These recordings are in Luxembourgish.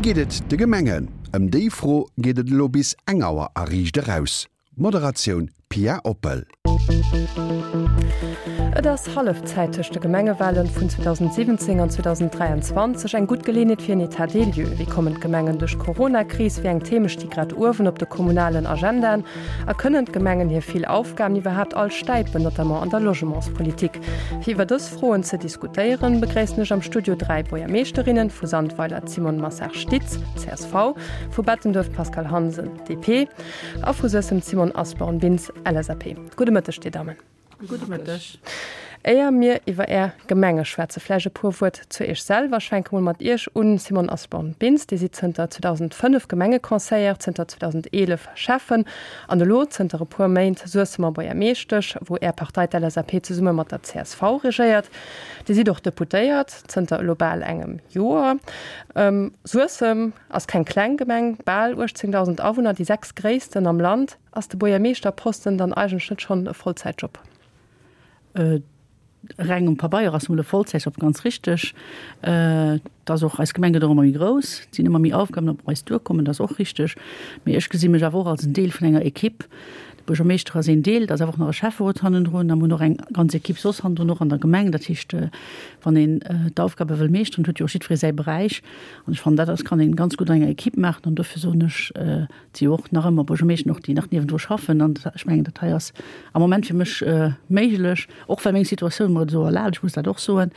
geet et de Gemengen? Ëm déi Fro geet et elo bis eng Auer a Riicht Eraus. Moderatioun Pia Oppel. Et ass Hallefzäit tëscht de Gemengewalen vun 2017 an 2023. Eng gutt Geleeënheet fir en État des lieux. Wéi kommen d'Gemengen duerch d'Corona-Kris? Wéi eng Theme sti grad uewen op de kommunalen Agendaen? A kënnen d'Gemengen hir vill Aufgaben iwwerhaapt all stäipen, notamment an der Logementspolitik? Fir iwwer dës Froen ze diskutéieren, begréissen ech am Studio 3 Buergermeeschterinnen, vu Sandweiler d'Simone Massard-Stitz, csv, vu Bettenduerf d'Pascale Hansen, DP, A vu Suessem d'Simone Asborn-Bintz, LSAP. Gudde Mëtteg, Dir Dammen. Gudde Mëtteg. Éier mir iwwer Är Gemenge schwätzen, vläicht e puer Wuert zu Iech selwer. Ech fänke mol mat Iech un, Simone Asborn-Bintz. Dir sidd zënter 2005 Gemengeconseillère, zënter 2011 Schäffen an elo zënter e puer Méint Suessemer Buergermeeschtesch, wou Är Partei, d'LSAP, zesumme mat der csv regéiert. Dir sidd och Deputéiert, zënter elo bal engem Joer. Suessem ass keng kleng Gemeng, bal 18.000 Awunner, déi sechstgréissten am Land. Ass de Buergermeeschterposten dann eigentlech net schonn e Vollzäitjob? Reng um Pabeier ass mol e Vollzäitjob, ganz richteg. Et ass och, eis Gemeng gëtt och ëmmer méi grouss, et sinn ëmmer méi Aufgaben op eis duerkommen, dat ass och richteg. Mee ech gesi mech awer och als en Deel vun enger Ekipp. De Buergermeeschter ass een Deel, et ass awer och nach e Schäfferot hannendrun a mir hunn och eng ganz Ekipp soss hannendrun, och an der Gemeng. Dat heescht, wann een d'Aufgabe wëll meeschteren, huet jo och jiddweree säi Beräich. An ech fannen, dat ass, kann een ganz gutt an enger Ekipp maachen. An dofir soen ech, et si jo och nach ëmmer Buergermeeschten och, déi nach niewendru schaffen. An ech mengen, dat hei ass am Moment fir mech méiglech, och well meng Situatioun mer et esou erlaabt, ech muss dat och soen.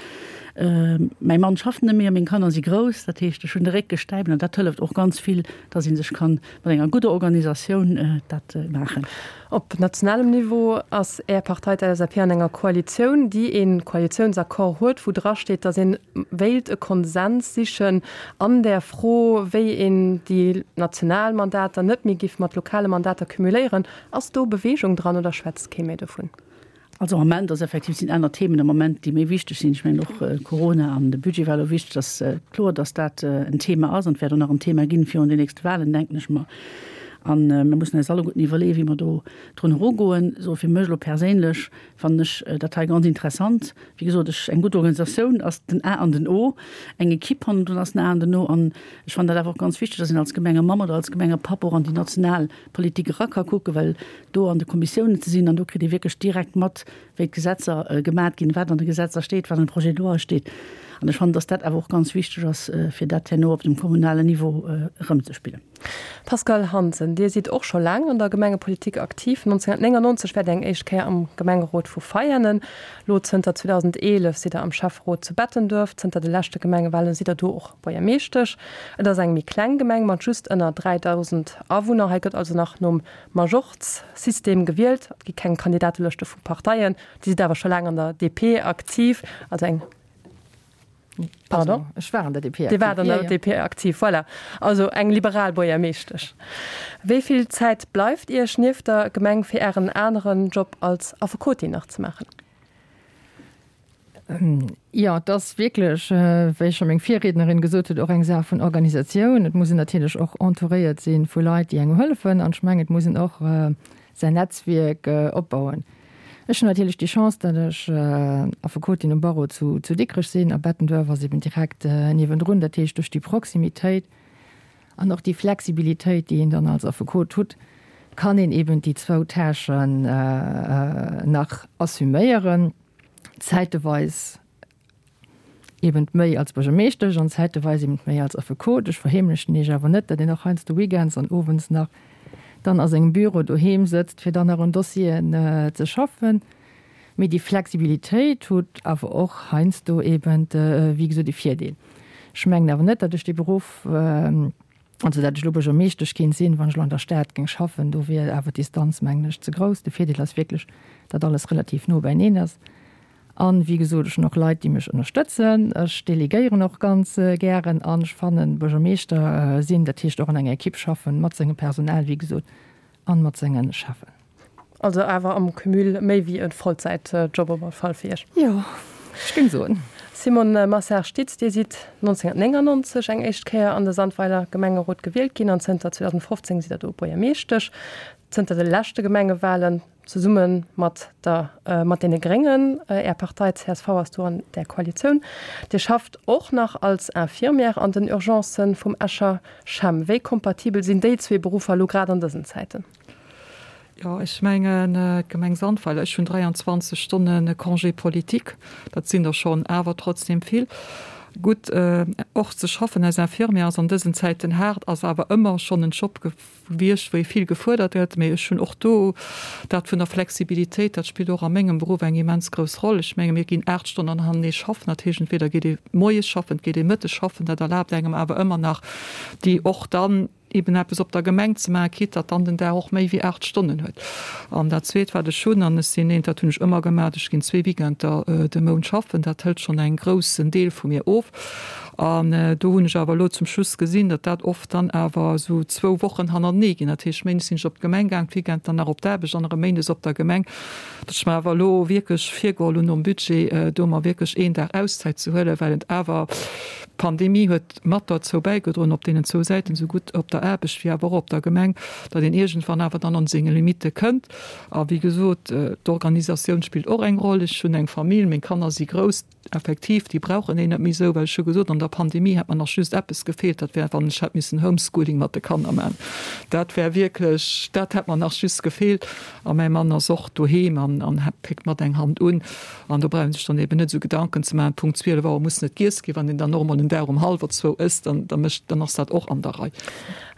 Mäi Mann schafft net méi a meng Kanner si grouss. Dat heescht, ech hunn de Réck gestäipt an dat hëlleft och ganz vill, dass ee sech kann mat enger gudder Organisatioun dat maachen. Op nationalem Niveau ass Är Partei, d'LSAP, an enger Koalitioun, déi ee Koalitiounsaccord huet, wou drasteet, datt ee wéilt e Konsens sichen an där Fro, wéi een déi national Mandater net méi giff mat lokale Mandater cumuléieren. Ass do Beweegung dran oder schwätzt kee méi dovun? Also am Moment ass effektiv, sinn aner Themen am Moment, déi méi wichteg sinn. Ech mengen och Corona an de Budget war elo wichteg. Et ass kloer, datt dat en Thema ass an et wäert och nach en Thema ginn virun den nächste Wahlen, denken ech mer. A mir mussen eis alleguerten iwwerleeën, wéi mer do drun erugoen. Sou fir mech elo perséinlech fannen ech dat hei ganz interessant. Wéi gesot, ech, eng gutt Organisatioun ass den A an den O, eng Ekipp hannendrun ass den A an den O. An ech fannen dat awer och ganz wichteg, datt een als Gemengemamm oder als Gemengepapp och an déi national Politik era ka kucken, well do an de Kommissiounen ze sinn an do kritt ee wierklech direkt mat, wéi d'Gesetzer gemat ginn, wat an de Gesetzer steet, wat an de Projet de loi steet. An ech fannen, datt dat awer och ganz wichteg ass, fir dat herno op dem kommunalen Niveau erëmzespillen. Pascale Hansen, Dir sidd och scho laang an der Gemengepolitik aktiv. 1999 waart Dir eng éischt Kéier am Gemengerot vu Veianen. Lo zënter 2011 sidd Der am Schäfferot zu Bettenduerf. Zënter de leschte Gemengewahlen sidd Der do och Buergermeeschtesch. Et ass eng méi kleng Gemeng mat just ënner 3.000 Awunner. Hei gëtt also nach nom Majorz-System gewielt. Et gi keng Kandidatelëschte vu Parteien. Dir sidd awer scho laang an der DP aktiv, also eng, pardon? Ech war an der DP aktiv. Dir waart an der DP aktiv, voilà. Also eng liberal Buergermeeschtesch. Wéi vill Zäit bleift Iech nieft der Gemeng fir Ären aneren Job als Affekotin nach ze maachen? Jo, et ass wierklech, wéi scho meng Virriednerin gesot huet, och eng Saach vun Organisatioun. Et muss een natierlech och entouréiert si vu Leit, déi engem hëllefen. An ech mengen, et muss een och säin Netzwierk opbauen. Ech hunn natierlech déi Chance, datt ech Affekotin um Barreau zu Dikrech sinn a Bettenduerf ass eben direkt niewendrun. Dat heescht, duerch déi Proximitéit an och déi Flexibilitéit, déi een dann als Affekot hutt, kann een eben déi zwou Tâchen nach assuméieren. zäiteweis eben méi als Buergermeeschtesch an zäiteweis eben méi als Affekot. Ech verheemlechen Iech awer net, datt een och heiansdo weekends an owends nach dann a sengem Büro doheem sëtzt, fir dann nach un Dossieren ze schaffen. Mee déi Flexibilitéit hutt awer och heiansdo eben, wéi gesot, e Virdeel. Ech mengen awer net, datt ech dee Beruff, Also dat ech elo Buergermeeschtesch kéint sinn, wann ech elo an der Stad géing schaffen, do wier awer d'Distanz, mengen ech, ze grouss. De Virdeel ass wierklech, datt alles relativ no beineen ass. An, wéi gesot, ech hunn och Leit, déi mech ënnerstëtzen. Ech delegéieren och ganz gären an ech fannen, Buergermeeschter sinn, dat heescht och an enger Ekipp schaffen, mat sengem Personal, wéi gesot, an mat sengen Cheffen. Also awer am Cumul méi wéi e Vollzäitjob op alle Fall fir Iech? Jo, ech géing soen. Simone Massard-Stitz, Dir sidd 1999 eng éischt Kéier an de Sandweiler Gemengerot gewielt ginn an zënter 2015 sidd Der do Buergermeeschtesch. Zënter de leschte Gemengewalen zesumme mat der mat deene Gréngen. Är Partei csv ass do an där Koalitioun. Dir schafft och nach als Infirmière an den Urgencen vum Escher CHEM. Wéi kompatibel sinn déi zwee Beruffer elo grad an dësen Zäiten? Jo, ech mengen, d'Gemeng Sandweiler, ech hunn 23 Stonne Congé politique, dat sinn der schonn awer trotzdem vill. Gutt, och ze schaffen als Infirmière ass an dësen Zäiten haart, ass awer ëmmer schonn en Job gewiescht, wou ee vill gefuerdert gëtt. Mee ech hunn och do dat vun der Flexibilitéit, dat spillt och a mengem Beruff eng immens grouss Roll. Ech menge mir ginn 8 Stonnen hanenee schaffen, dat heescht entweder geet ee moies schaffen, et geet ee mëttes schaffen, dat erlaabt engem awer ëmmer nach déi och dann, eben eppes op der Gemeng ze maachen, quitte datt dann den Dag och méi wéi 8 Stonnen huet. An dat Zweet, wat ech hunn, an ech sinn eent, dat hunn ech ëmmer gemaach, ech ginn zwee Weekender de Mount schaffen, dat hëlt schonn eng groussen Deel vu mir of. An do hunn ech awer elo zum Schluss gesinn, datt dat oft dann awer esou zwou Wochen hannertenee ginn. Dat heescht, méindes sinn ech op d'Gemeng gaang, d'Weekend dann nach op d'Aarbecht an erëm méindes op der Gemeng. Datt ech mer awer elo wierklech virgeholl hunn nom Budget, do mer wierklech een Dag Auszäit ze huelen, well et awer, d'Pandemie huet, mat derzou bäigedroen, op deenen zwou Säiten, esou gutt op der Aarbecht wéi awer och op der Gemeng, datt een iergendwann awer dann an senge Limitte kënnt. A wéi gesot, d'Organisatioun spillt och eng Roll. Ech hunn eng Famill, meng Kanner si grouss, effektiv, déi brauchen een net méi esou, well ech hu gesot, an der Pandemie hätt mer nach just eppes gefeelt, dat wär, wann ech hätt missen Homeschooling mat de Kanner maachen. Dat wär wierklech, dat hätt mer nach just gefeelt. A mäi Mann ass och doheem an péckt mat eng Hand un. An do brauch ee sech dann eben net esou Gedanken ze maachen, Punkt 12 Auer muss net giess ginn. Wann een dann och emol en Dag um hallwer zwou ësst, dann, da mécht, dann ass dat och an der Rei.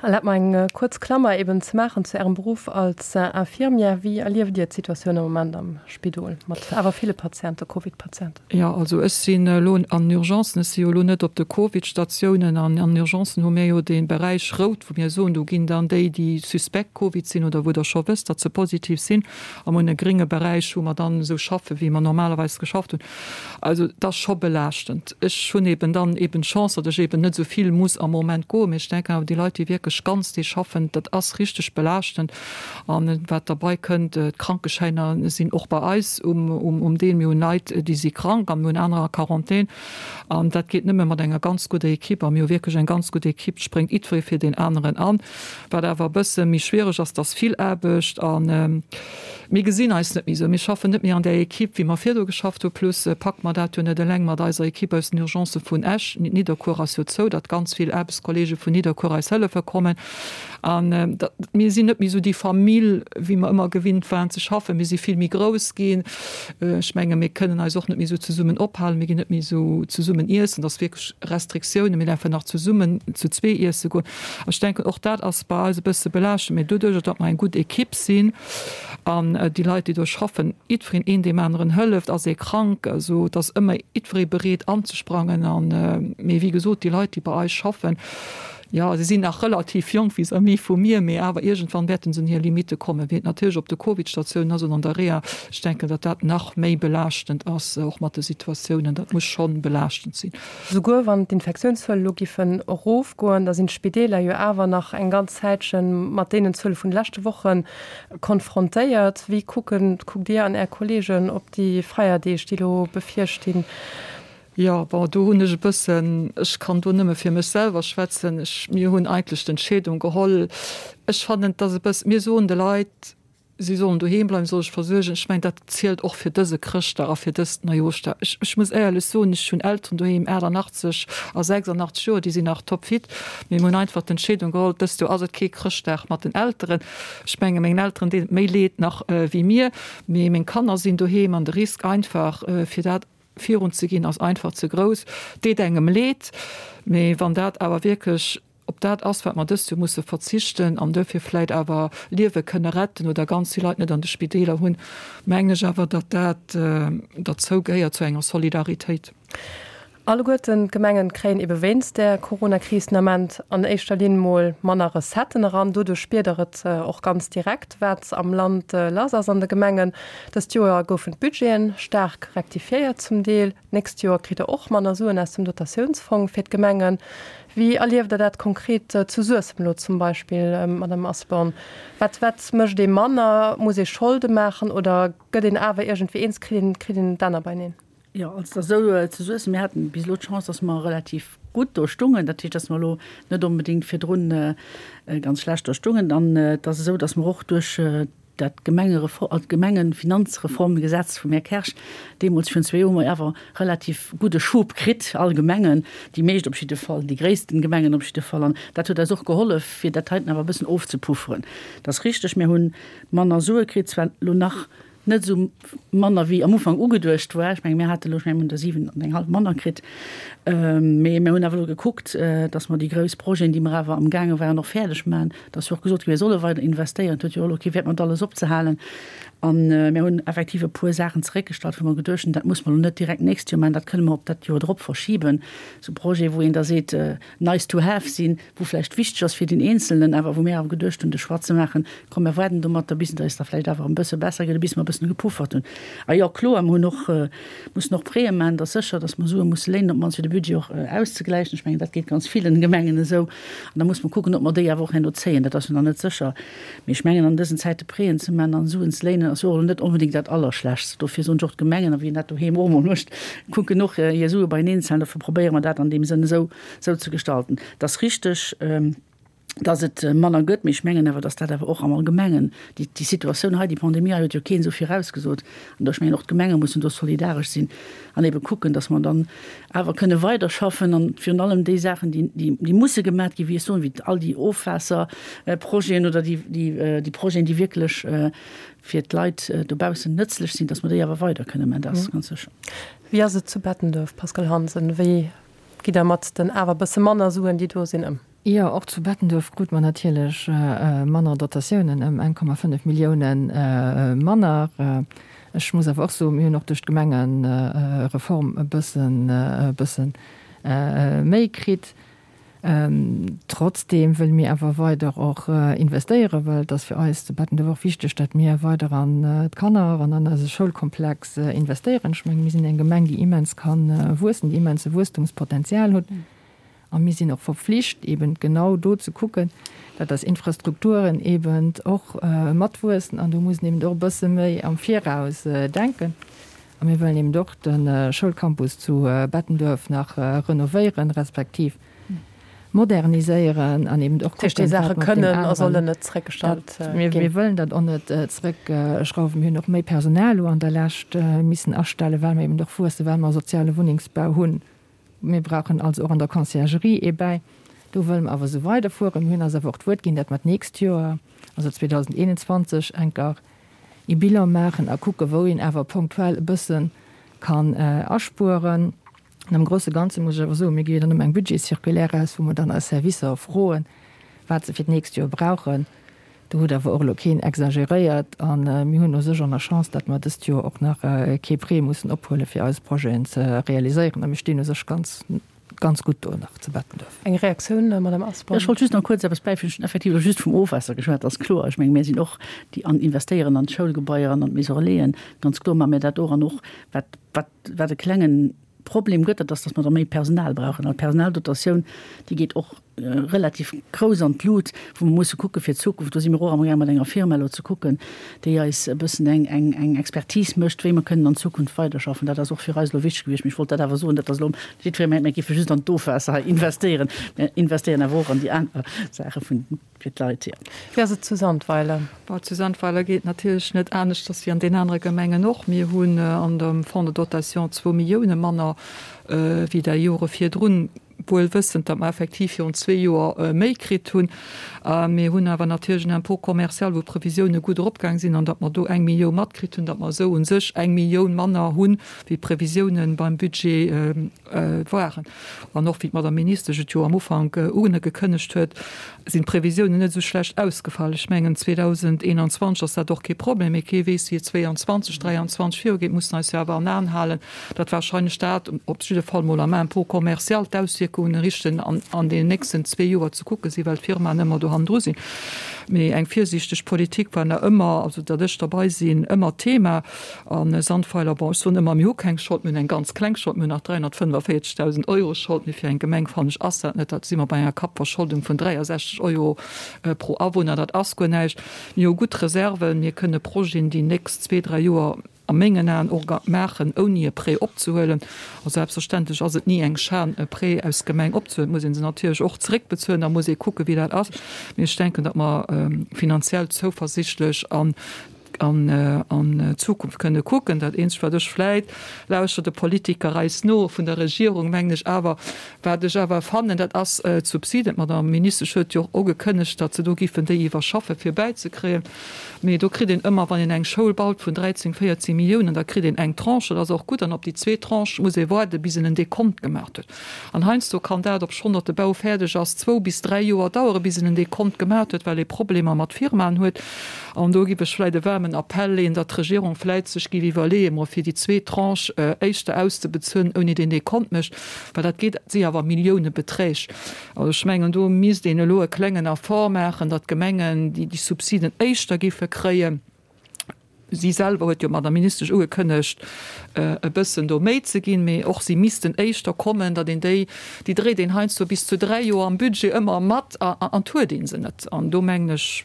Erlaabt mer eng kuerz Klammer eben ze maachen zu Ärem Beruff als Infirmière. Wéi erlieft Dir d'Situatioun am Moment am Spidol mat awer ville Patienten, Covid-Patienten? Jo, also ech sinn elo an den Urgencen, ech si jo elo net op de Covid-Statiounen. An an den Urgencen hu mir jo dee Beräich rout, wou mir soen, do ginn dann déi, déi suspekt Covid sinn oder wou Der scho wësst, datt se positiv sinn, Am un e gringe Beräich, wou mer dann esou schaffe wéi mer normalerweis geschafft hunn. Also et ass scho belaaschtend. Ech hunn eben dann eben d'Chance, datt ech eben net esou vill muss am Moment goen. Mee ech denken awer déi Leit, déi wierklech ganz Deeg schaffen, dat ass richteg belaaschtend. An wat derbei kënnt, d'Krankeschäiner sinn och bei eis um Deel. Mir hunn Leit, déi si krank a mir hunn anerer a Quarantän. An dat geet nëmme mat enger ganz gudder Equipe. A mir hu wierklech eng ganz gutt Equipe. Et spréngt jiddweree fir deen aneren an. Wat awer e bësse méi schwiereg ass, dass vill Aarbecht a mir gesinn eis net méi esou. Mir schaffen net méi an där Equipe, wéi mer virdu geschafft hu. Plus packe mer dat jo net eleng mat eiser Equipe aus den Urgencë vun Esch. Nidderkuer ass jo zou, datt ganz vill Aarbechtskolleege vun Nidderkuer eis hëllefe kommen. An mir sinn net méi esou déi Famill, wéi mer ëmmer gewinnt waren ze schaffen. Mir si vill méi grouss ginn. Ech menge mir kënnen eis och net méi esou zesummen ophalen. Mir ginn net méi esou zesummen iessen. Et ass wierklech Restriktiounen. Mir däerfen nach zesummen zu zwee iesse goen. Ech denken, och dat ass bei eis e bësse belaaschtend, mee doduerjer, datt mer eng gutt Ekipp sinn an déi Leit, déi do schaffen, jiddwereen een deem aneren hëlleft, ass ee krank, also et ass ëmmer jiddweree bereet anzesprangen. An, mee wéi gesot, déi Leit, déi bei eis schaffen, jo, se sinn nach relativ jonk vis-à-vis vu mir, mee awer iergendwann wäerte se un hir Limitte kommen, wéi et natierlech op de Covid-Statiounen ass oder an der Reha. Ech denken, datt dat nach méi belaaschtend ass, och mat de Situatiounen. Dat muss scho belaaschtend sinn. Souguer wann d'Infektiounszuele lo giffen erofgoen, da sinn d'Spideeler jo awer nach eng ganz Zäitche mat deenen Zuele vun de leschte Woche konfrontéiert. Wéi kucken, kuckt Dir an Är Kolleegen op déi Feierdeeg, déi elo bevirstinn? Jo, bon, do hunn ech e bëssen, ech kann do nëmme fir mech selwer schwätzen, ech, mir hunn eigentlech d'Entscheedung geholl, ech fannen, et ass e bëss, mir soen de Leit, Si sollen doheem bleiwen, solle sech versuergen. Ech mengen, dat zielt och fir dëse Chrëschtdag a fir dëst Neijooschdag. Ech, ech muss éierlech soen, ech hunn Elteren doheem, 88 a 86 Joer, déi sinn nach topfit. Mee mir hunn einfach d'Entscheedung geholl, dëst Joer ass et kee Chrëschtdag mat den Elteren. Ech menge mengen Elteren deet et méi leed nach wéi mir. Mee meng Kanner sinn doheem an de Risk einfach, fir dat virun ze ginn, ass einfach ze grouss. Deet engem leed, mee wann dat awer wierklech Ob dat ass, wat mer dëst Joer musse verzichten an duerfir vläit awer Liewe kënne retten oder ganz vill Leit net an de Spideeler hunn, mengen ech awer, datt dat derzou gehéiert zu enger Solidaritéit. Alleguerten d'Gemengen kréien ebe wéinst der Coronakris den Ament an éischter Linn mol manner Recetten eran. Doduerch spiert der et och ganz direkt, wat am Land lass ass an de Gemengen. Dëst Joer goufen d'Budgeten staark rektifiéiert zum Deel. D'nächst Joer kritt der och manner Suen aus dem Dotatiounsfong fir d'Gemengen. Wéi erlieft Der dat konkret zu Suessem elo zum Beispill, Madame Asborn? Wat, wat mécht ee manner? Muss ee Scholde maachen oder gëtt een awer iergendwéi eens, kritt een, kritt een d'Enner beineen? Jo, also et ass esou zu Suessem, mir haten bis elo d'Chance, dass mer relativ gutt do stungen. Dat heescht, dass mer elo net onbedéngt virdrun ganz schlecht do stungen. An et ass esou, dass mer och duerch dat Gemengerefor-, d'Gemengefinanzreformgesetz vum Här Kersch deemools virun zwee Joer hu mer awer relativ gudde Schub kritt, all Gemengen, déi meescht op jidde Fall, déi gréissten Gemengen op jidde Fall. An dat huet eis och gehollef, fir dat heiten awer e bëssen ofzepufferen. Et ass richteg, mir hu manner Sue kritt, zwar elo nach net esou manner wéi am Ufank ugeduecht war. Ech menge mir hate elo, ech menge mir hunn der 7 an eng hallef manner kritt. Mee mir hunn awer elo gekuckt, datt mer déi grouss Projeten, déi mer awer amgaange waren, och fäerdeg maachen. Et ass jo och gesot ginn, mir solle weider investéieren. Et huet jo och elo kee Wäert mat alles opzehalen. A mir hunn effektiv e puer Saachen zeréckgestallt, wou mer geduecht hunn, dat muss mer elo net direkt d'nächst Joer maachen, dat kënne mer op dat Joer drop verschiben. Esou Projete wou een da seet, nice to have sinn, wou vläicht wichteg ass fir den Eenzelnen, awer wou mir awer geduecht hunn, de Choix ze maachen, komm mir waarden domatter, bis et eis da vläicht awer e bësse besser geet, bis mer e bëssen gepuffert hunn. A jo, kloer, mer hunn och mussen och Prêtë maachen, et ass sécher, datt mer Sue musse léinen, op d'mannst fir de Budget och auszegläichen. Ech mengen, dat geet ganz villen Gemengen esou. An da muss mer kucken, ob mer déi awer och herno zéien. Dat ass jo nach net sécher. Mee ech mengen, an dësen Zäite Prêten ze maachen an Suen ze léinen, ass jo och elo net onbedéngt dat Allerschlechtst. Dofir soen ech och, d'Gemengen, a wien dat doheem och emol mécht, kucken och hir Sue beieneen ze halen. Dofir probéiere mer dat an deem Sënn esou esou ze gestalten. Et ass richteg, dass et manner gëtt, mee ech mengen awer, dass dat awer och am Allgemengen, déi, déi Situatioun hei, déi Pandemie hei huet jo keen esou virausgesot. An ech mengen, och d'Gemenge mussen do solidaresch sinn an ebe kucken, dass mer dann awer kënne weiderschaffen an virun allem déi Saachen, déi, déi, déi musse gemat ginn, wéi ech soen, wéi all déi Ofwaasserprojeten oder déi, déi, déi Projeten, déi wierklech fir d'Leit dobaussen nëtzlech sinn, dass mer déi awer weider kënne man, dat ass ganz sécher. Wéi ass et zu Bettenduerf, Pascale Hansen? Wéi gitt Der mat den awer bësse manner Suen, déi do sinn, ëm? Jo, och zu Bettenduerf krute mer natierlech manner Dotatiounen, ëm 1,5 Milliounen manner. Ech muss awer och soen, mir hunn och duerch d'Gemengereform e bëssen, e bësse méi kritt. Trotzdeem wëlle mir awer weider och investéieren, well et ass fir eis zu Bettenduerf och wichteg, datt mir weider an d'Kanner an an eise Schoulkomplex investéieren. Ech mengen, mir sinn eng Gemeng, déi immens ka wuessen, déi immense Wuesstumspotenzial huet. A mir sinn och verpflicht, eben genau do ze kucken, datt eis Infrastrukturen eben och matwuessen. An do muss een eben och e bësse méi am Viraus denken. A mir wëllen eben och de Schoulcampus zu Bettenduerf nach renovéieren, respektiv moderniséieren an eben och kucken, wat mat deem kënnen a sollen net zréckgestallt ginn. Mir wëllen dat och net zréckschrauwen. Mir hunn och méi Personal elo an der Lescht missen astellen, well mer eben och wuessen, well mer soziale Wunnengsbau hunn. Mir brauchen also och an der Conciergerie ee bäi. Do wëlle mer awer esou weiderfueren. Mir hunn eis awer och d'Wuert ginn, dat mer d'nächst Joer, also 2021, enker ee Bilan maachen a kucken, wou een awer ponktuell e bësse kann aspueren. An am grouse Ganze muss ech awer soen, mir gi jo dann ëmmer eng Budgetscirculaire aus, wou mer dann eis Servicer froen, wat se fir d'nächst Joer brauchen. Do huet awer och elo keen exageréiert a mir hunn u sech och nach Chance, datt mer dëst Joer och nach kee Prêt mussen ophuelen, fir eis Projeten ze realiséieren. A mir stinn u sech ganz, ganz gutt do nach zu Bettenduerf. Eng Reaktioun, Madame Asborn? Ech wollt just nach kuerz eppes bäifügen. Ech hunn effektiv elo just vum Ofwaasser geschwat, dat ass kloer. Ech menge mir sinn och déi an investéieren an d'Schoulgebaier an an d'Maison relaisen. Ganz kloer maache mir dat och. An och wat, wat, wat e klengen Problem gëtt, dat ass, datt mer da méi Personal brauchen. An d'Personaldotatioun, déi geet och relativ grouss an d'Lut, wou mer musse kucke fir d'Zukunft. Do si mir och amgaang mat enger Firma elo ze kucken, déi eis e bëssen eng, eng, eng Expertise mécht, wéi mer kënnen an Zukunft weiderschaffen. Dat ass och fir eis elo wichteg gewiescht. Mee ech wollt dat awer soen, dat ass elo jiddweree mengt, mir géife just an d'Ofwaasser hei investéieren. Mir investéieren awer och an déi aner Saache vun, fir d'Leit, jo. Wéi ass et zu Sandweiler? Bon, zu Sandweiler geet et natierlech net aneschters wéi an den anere Gemengen och. Mir hunn an dem Fonds de dotation zwou Millioune manner wéi der Jore virdrun, wuel wëssend, datt mer effektiv virun zwee Joer méi kritt hunn. Mir hunn awer natierlech en Impôt commercial, wou d'Previsioune gutt eropgaang sinn an datt mer do eng Millioun matkritt hunn, datt mer esou u sech eng Millioun manner hunn, wéi d'Previsiounen beim Budget waren. An och wéi d'Madame Ministesch et jo am Ufank ugekënnegt huet, sinn d'Previsiounen net esou schlecht ausgefall. Ech mengen, 2021 ass dat och kee Problem, mee kee weess, wéi et 22, 23 virugeet. Mussen eis jo awer an Aen halen, datt wahrscheinlech dat, op jidde Fall mol am Impôt commercial, d'Auswierkungen richten an deenen nächsten zwee Joer ze kucke sinn, well d'Firmaen ëmmer do hannendru sinn. Mee eng virsiichteg Politik war nach ëmmer, also datt ech derbei sinn, ëmmer Thema. A Sandweiler, bon, ech soen ëmmer, mir hu keng Schold, mir hunn eng ganz kleng Schold, mir hunn nach 345.000 Euro Schold, mee fir eng Gemeng, fannen ech, ass dat net, dat si mer bei enger Kappverscholdung vun 63 Euro pro Awunner, dat ass guer näischt. Mir hu gutt Reserven, mir kënne Projeten déi nächst zwee, dräi Joer. A mengen Aen och maachen, ouni e Prêt opzehuelen. A selbstverständlech ass et ni eng Schan, e Prêt aus Gemeng opzehuelen. Et muss ee se natierlech och zeréckbezuelen, da muss ee kucken, wéi dat ass. Mee ech denken, datt mer finanziell zouversichtlech an an d'Zukunft kënne kucken. Dat Eenzegt, wat ech vläit, lauschter de Politiker eis no vun der Regierung, mengen ech awer, Wat ech awer fannen, dat ass d'Subsiden. D'Madame Ministesch huet jo och ugekënnegt, datt se do giffen déi iwwerschaffen, fir bäizekréien. Mee do kritt een ëmmer, wann een eng Schoul baut vun 13, 14 Milliounen, da kritt een eng Tranche, dat ass och gutt, an op déi zweet Tranche muss ee waarden, bis en en Dekont gemaach huet. An heiansdo kann dat, obschonn datt de Bau fäerdeg ass, zwou bis dräi Joer daueren, bis en en Dekont gemaach huet, well ee Problemer mat Firmaen huet. An do giff ech vläit e waarmen Appell leeën, datt d'Regierung vläit sech giff iwwerleeën, mol fir déi zweet Tranche éischter auszebezuelen, ouni deen Dekont mécht. Well dat geet, si awer Milliounebeträg. Also ech mengen, do misst een elo e klengen Effort maachen, datt d'Gemengen déi Subsiden éischter géife kréien. Si selwer huet jo, d'Madame Ministesch, ugekënnegt, e bëssen do méi ze ginn, mee och si missten éischter kommen, datt een déi, déi dréit een heiansdo bis zu dräi Joer am Budget ëmmer mat an et huet ee se net. An do mengen ech,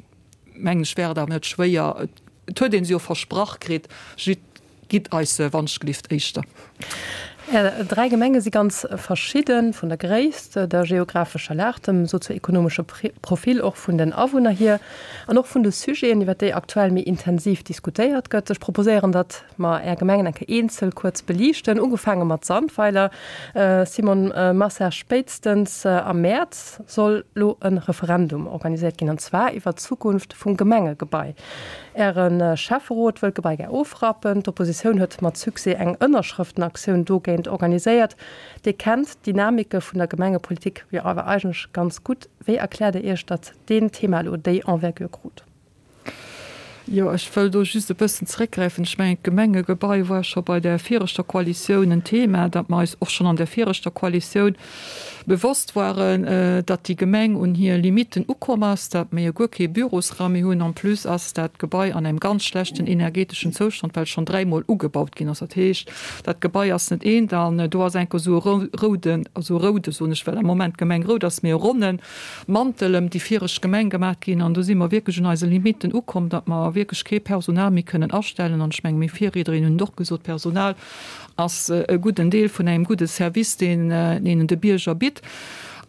mengen ech, wär et awer net schwéier, et huet ee se jo versprach kritt, Gitt eis se wannschtgelift éischter. Är 3 Gemenge si ganz verschidden, vun der Gréisst, der geographescher Lag, dem sozioekonomesche Profil och vun den Awunner hier an och vun de Sujeten, iwwer déi aktuell méi intensiv diskutéiert gëtt. Ech proposéieren, datt mer Är Gemengen eng Kéier eenzel kuerz beliichten, ugefaange mat Sandweiler. Simone Marcel, spéitstens am Mäerz soll lo e Referendum organiséiert ginn, an zwar iwwer d'Zukunft vum Gemengegebai. Äre Schäfferot wëll d'Gebai gär ofrappen. D'Oppositioun huet mat Succès eng Ënnerschrëftenaktioun dogéint organiséiert. Dir kennt d'Dynamike vun der Gemengepolitik jo awer eigentlech ganz gutt. Wéi erkläert Der Iech, datt deen Thema elo déi Envergure krut? Jo, ech wëll do just e bëssen zeréckgräifen. Ech mengen, d'Gemengegebai war scho bei där viregter Koalitioun en Thema, dat mer eis och schonn an där viregter Koalitioun bewosst waren, datt déi Gemeng un hir Limitten ukomm ass, datt mir jo guer kee Bürosraum méi hunn. En plus ass dat Gebai an engem ganz schlechten energeteschen Zoustand, well schonn dräimol ugebaut ginn ass. Dat heescht, dat Gebai ass net eent an do ass enker esou e rouden, also roude soen ech, well am Moment d'Gemeng rout ass, mee e ronne Mantel ëm déi viregt Gemeng gemaach ginn. An do si mer wierklech un eise Limitten ukomm, datt mer wierklech kee Personal méi kënnen astellen. An ech menge meng Virriednerin hunn et och gesot, Personal ass e gudden Deel vun engem gudde Service, deen een de Bierger bitt.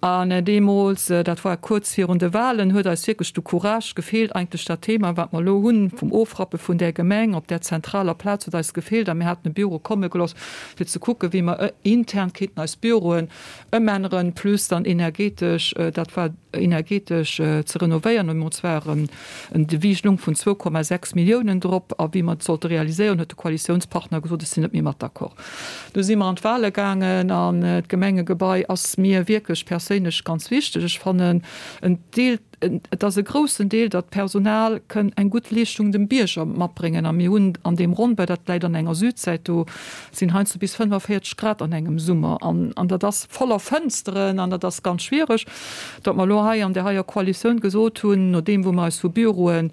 An deemools, dat war kuerz virun de Wahlen, huet eis wierklech de Courage gefeelt, eigentlech dat Thema, wat mer elo hunn, vum Ofrappe vun där Gemeng op där zentraler Plaz, huet eis gefeelt. A mir haten e Büro komme gelooss, fir ze kucken, wéi mer intern kéinten eis Büroen Ëmänneren, plus dann energetesch, dat war energetesch ze renovéieren. An zwar en Devis lung vun 2,6 Milliounen drop. A wéi mer et sollte realiséieren, huet de Koalitiounspartner gesot, ech sinn net méi mat d'accord. Du si mer an d'Wahle gaangen an d'Gemengegebai ass mir wierklech perséinlech ganz wichteg. Ech fannen en Deel, Et ass e groussen Deel, datt d'Personal kënn eng gutt Leeschtung dem Bierger matbréngen. A mir hunn an deem Ronnbau, dat läit an enger Südsäit, do sinn heiansdo bis 45 Grad an engem Summer an an dat ass voller Fënsteren an dat ass ganz schwiereg, datt mer elo hei an där heier Koalitioun gesot hunn, nodeem wou mer eis vu Büroe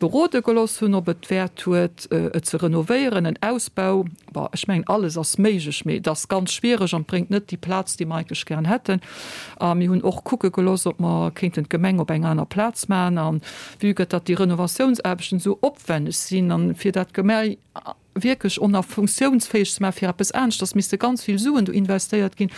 berode geloss hunn, ob et Wäert huet, et ze renovéieren, en Ausbau, bon, ech mengen, alles ass méiglech, mee et ass ganz schwiereg an et bréngt net déi Plaz, déi mer eigentlech gären hätten. A mir hunn och kucke gelooss, ob mer kéinten d'Gemeng op eng aner Plaz maachen. A vue que datt déi Renovatiounsaarbechten esou opwenneg sinn an fir dat Gemei wierklech och nach funktiounsfäeg ze maachen fir eppes aneschters, misste ganz vill Suen do investéiert ginn.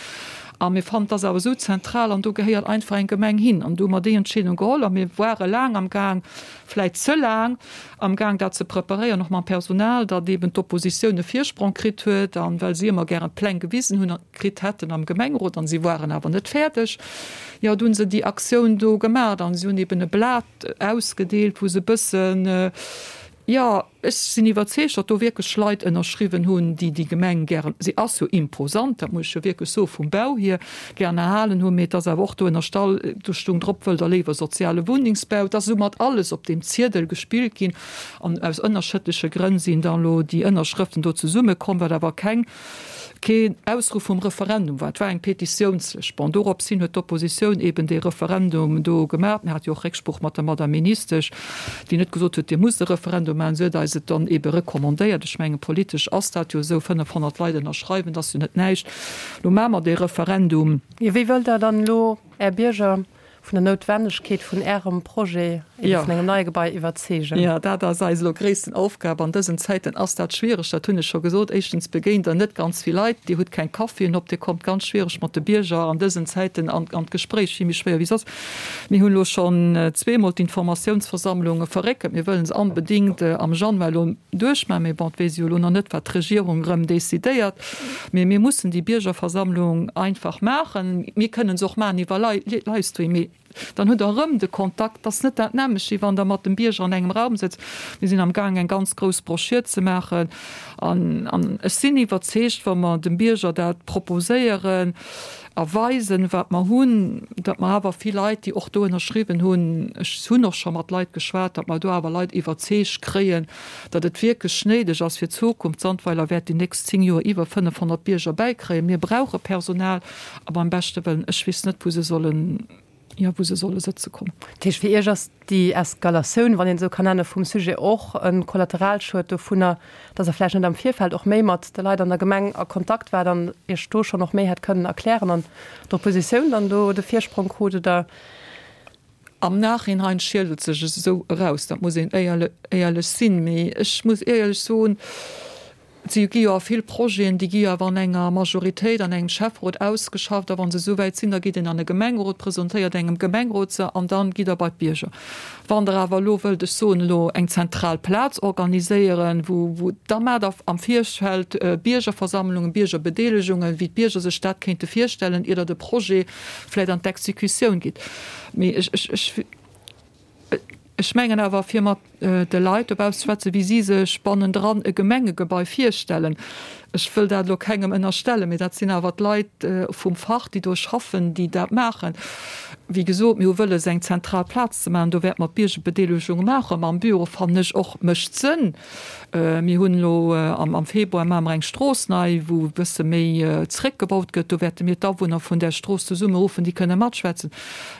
A mir fannen, et ass awer esou zentral an do gehéiert einfach eng Gemeng hin. An do hu mer déi Entscheedung geholl a mir ware laang am Gaang, vläit ze laang am Gaang dat ze preparéieren, och mam Personal, datt eeben d'Oppositioun e Virsprong kritt huet an well si ëmmer gären d'Pläng gewisen hunn, kritt hätten am Gemengerot an si waren awer net fäerdeg. Jo, du hunn se déi Aktioun do gemaacht an si hunn eeben e Blat ausgedeelt, wou se e bëssen, jo, ech sinn iwwerzeegt, datt do wierklech Leit ënnerschriwwen hunn, déi déi Gemeng gären, si ass jo imposant, dat muss ech jo wierklech soen, vum Bau hier, gären erhalen hunn, mee et ass awer och do ënnerstall, do stung drop, wëllt Der léiwer soziale Wunnengsbau? Et ass esou mat alles op deem Ziedel gespillt ginn an aus ënnerschëttleche Grënn sinn dann elo déi Ënnerschrëften do zesummekomm, wat awer keng keen Ausruff vum Referendum war, et war eng Petitiounslëscht. Bon, dorops hin huet d'Oppositioun eben dee Referendum do gemaach. Mir hate jo och Récksprooch mat der Madame Ministesch, déi net gesot huet, Dir musst e Referendum maachen. Si huet eis et dann ebe recommandéiert. Ech mengen, politesch ass dat jo esou, 500 Leit ënnerschreiwen, dat ass jo net näischt. Lo maache mer dee Referendum. Jo, wéi wëllt Der dann elo Är Bierger. Vun der Noutwennegkeet vun Ärem Projet, ebe vun engem neie Gebai, iwwerzeegen. Jo, dat ass eis elo gréissten Aufgab. An dësen Zäiten ass dat schwiereg, dat hunn ech scho gesot. Éischtens begéint Der net ganz vill Leit, Dir hutt keng Caféen op, Dir kommt ganz schwiereg mat de Bierger an dësen Zäiten an d'Gespréich, vill méi schwéier wéi soss. Mir hunn elo schonn zweemol d'Informatiounsversammlunge verréckelt. Mir wëllen se onbedéngt am Januar elo duerchmaachen, mee bon, et weess ee jo elo nach net, wat d'Regierung erëm decidéiert. Mee mir mussen déi Biergerversammlung einfach maachen. Mir kënnen se och maachen iwwer Livestream, mee dann hutt Der erëm de Kontakt. Dat ass net dat nämmlecht, wéi wann Der mat dem Bierger an engem Raum sëtzt. Mir sinn amgaang eng ganz grouss Broschür ze maachen an ech sinn iwwerzeegt, wa mer dem Bierger dat proposéieren a weisen, wat mer hunn, datt mer awer vill Leit, déi och do ënnerschriwwen hunn, ech hunn och scho mat Leit geschwat, datt mer do awer Leit iwwerzeegt kréien, datt et wierklech néideg ass fir d'Zukunft. Sandweiler wäert déi nächst 10 Joer iwwer 500 Bierger bäikréien. Mir brauche Personal a beim beschte Wëllen, ech weess net, wou se sollen, jo, wou se solle sëtze kommen. Dat heescht, fir Iech ass déi Eskalatioun, wann een et esou kann nennen, vum Sujet och e Kollateralschued dovunner, datt Der vläicht net am Virfeld och méi mat de Leit an der Gemeng a Kontakt waart an Iech do schonn och méi hätt kënnen erklären an d'Oppositioun dann do de Virsprong krut, oder? Am Nachhinein schielt et sech esou eraus, dat muss een éierlech sinn. Mee ech muss éierlech soen, et si gi jo a vill Projeten, déi gi jo awer an enger Majoritéit, an engem Schäfferot ausgeschafft. A wa se esou wäit sinn, da geet een an e Gemengerot, presentéiert engem Gemengerot se an dann gitt Der bei d'Bierger. Wann Der awer elo wëllt, ech soen elo, eng zentral Plaz organiséieren, wou, wou, da maacht Der am Virfeld Biergerversammlungen, Biergerbedeelegungen, wéi d'Bierger sech dat kéinte virstellen, ier Der de Projet vläicht an d'Exekutioun gitt. Mee ech, ech, ech, ech mengen awer, fir mat de Leit dobauss ze schwätzen, wéi si sech bannendran e Gemengegebai virstellen, ech wëll dat elo kengem ënnerstellen, mee dat sinn awer d'Leit vum Fach, déi do schaffen, déi dat maachen. Wéi gesot, mir hu wëlles, eng zentral Plaz ze maachen. Do wäerte mer d'Biergerbedeelegung maachen. Mam Büro, fannen ech och, mécht Sënn. Mir hunn elo am Februar maache mer eng Strooss nei, wou e bësse méi zeréckgebaut gëtt. Do wäerte mir d'Awunner vun där Strooss zesummeruffen, déi kënne matschwätzen.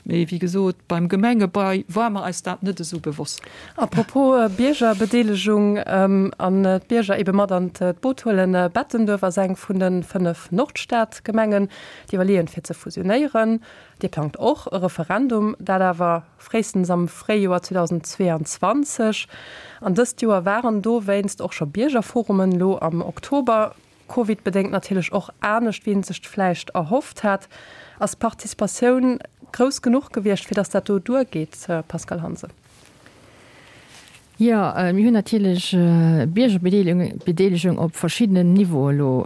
Mee wéi gesot, beim Gemengebai war mer eis dat net esou bewosst. A propos Biergerbedeelegung an d'Bierger ebe mat an d'Boot huelen, Bettenduerf ass eng vun de 5 Nordstadgemengen, déi iwwerleeën, fir ze fusionéieren. Dir plangt och e Referendum, dat awer fréistens am Fréijoer 2022. An dëst Joer waren dowéinst och scho Biergerforumen, elo am Oktober. Covid-bedéngt natierlech och anescht, wéi een sech vläicht erhofft hat. Ass d'Participatioun grouss genuch gewiescht, fir datt dat do duergeet, Pascale Hansen? Jo, mir hunn natierlech Biergerbedeelegung op verschiddenen Niveaue elo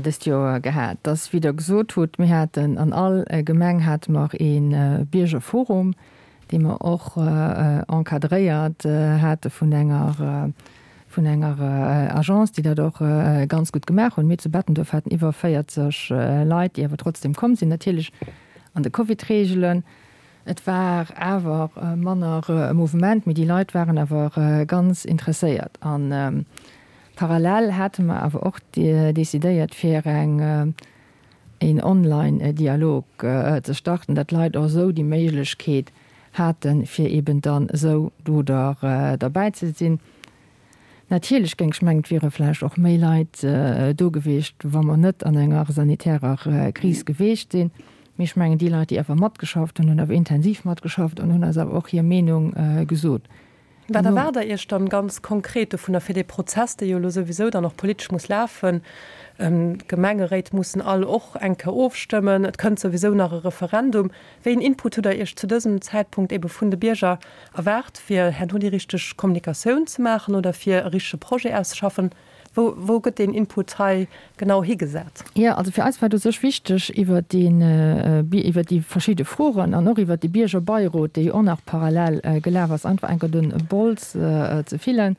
dëst Joer gehat. Dass, wéi Der gesot hutt, mir haten an all Gemeng hate mer ee Biergerforum, dee mer och encadréiert hate vun enger, vun enger Agence, déi dat och ganz gutt gemaach hunn. Mir zu Bettenduerf haten iwwer 40 Leit, déi awer trotzdem komm sinn, natierlech an de Covid-Reegelen. Et war awer manner e Mouvement, mee déi Leit waren awer ganz interesséiert. A parallel hate mer awer och decidéiert, fir eng een Online-Dialog ze starten, datt d'Leit och esou déi Méiglechkeet haten, fir eben dann esou do derbäi ze sinn. Natierlech géing ech mengen, et wiere vläicht och méi Leit do gewiescht, wa mer net an enger sanitärer Kris gewiescht sinn. Mee ech mengen, déi Leit, déi awer matgeschafft hunn, hunn awer intensiv matgeschafft an hunn eis awer och hir Meenung gesot. Wat erwaart Der Iech dann ganz konkret dovunner fir dee Prozess, dee jo elo souwisou dann och politesch muss lafen? D'Gemengeréit mussen all och eng Kéier ofstëmmen, et kënnt souwisou nach e Referendum. Wéi een Input hutt Der Iech zu dësem Zäitpunkt ebe vun de Bierger erwaart, fir herno déi richteg Kommunikatioun ze maachen oder fir e richtege Projet auszeschaffen? Wou, wou gëtt deen Input hei genau higesat? Jo, also fir eis war et u sech wichteg, iwwert deen, iwwert déi verschidde Froen an och iwwert de Biergerbeirot, dee jo och nach parallel gelaf ass, einfach enker de Bols ze fillen.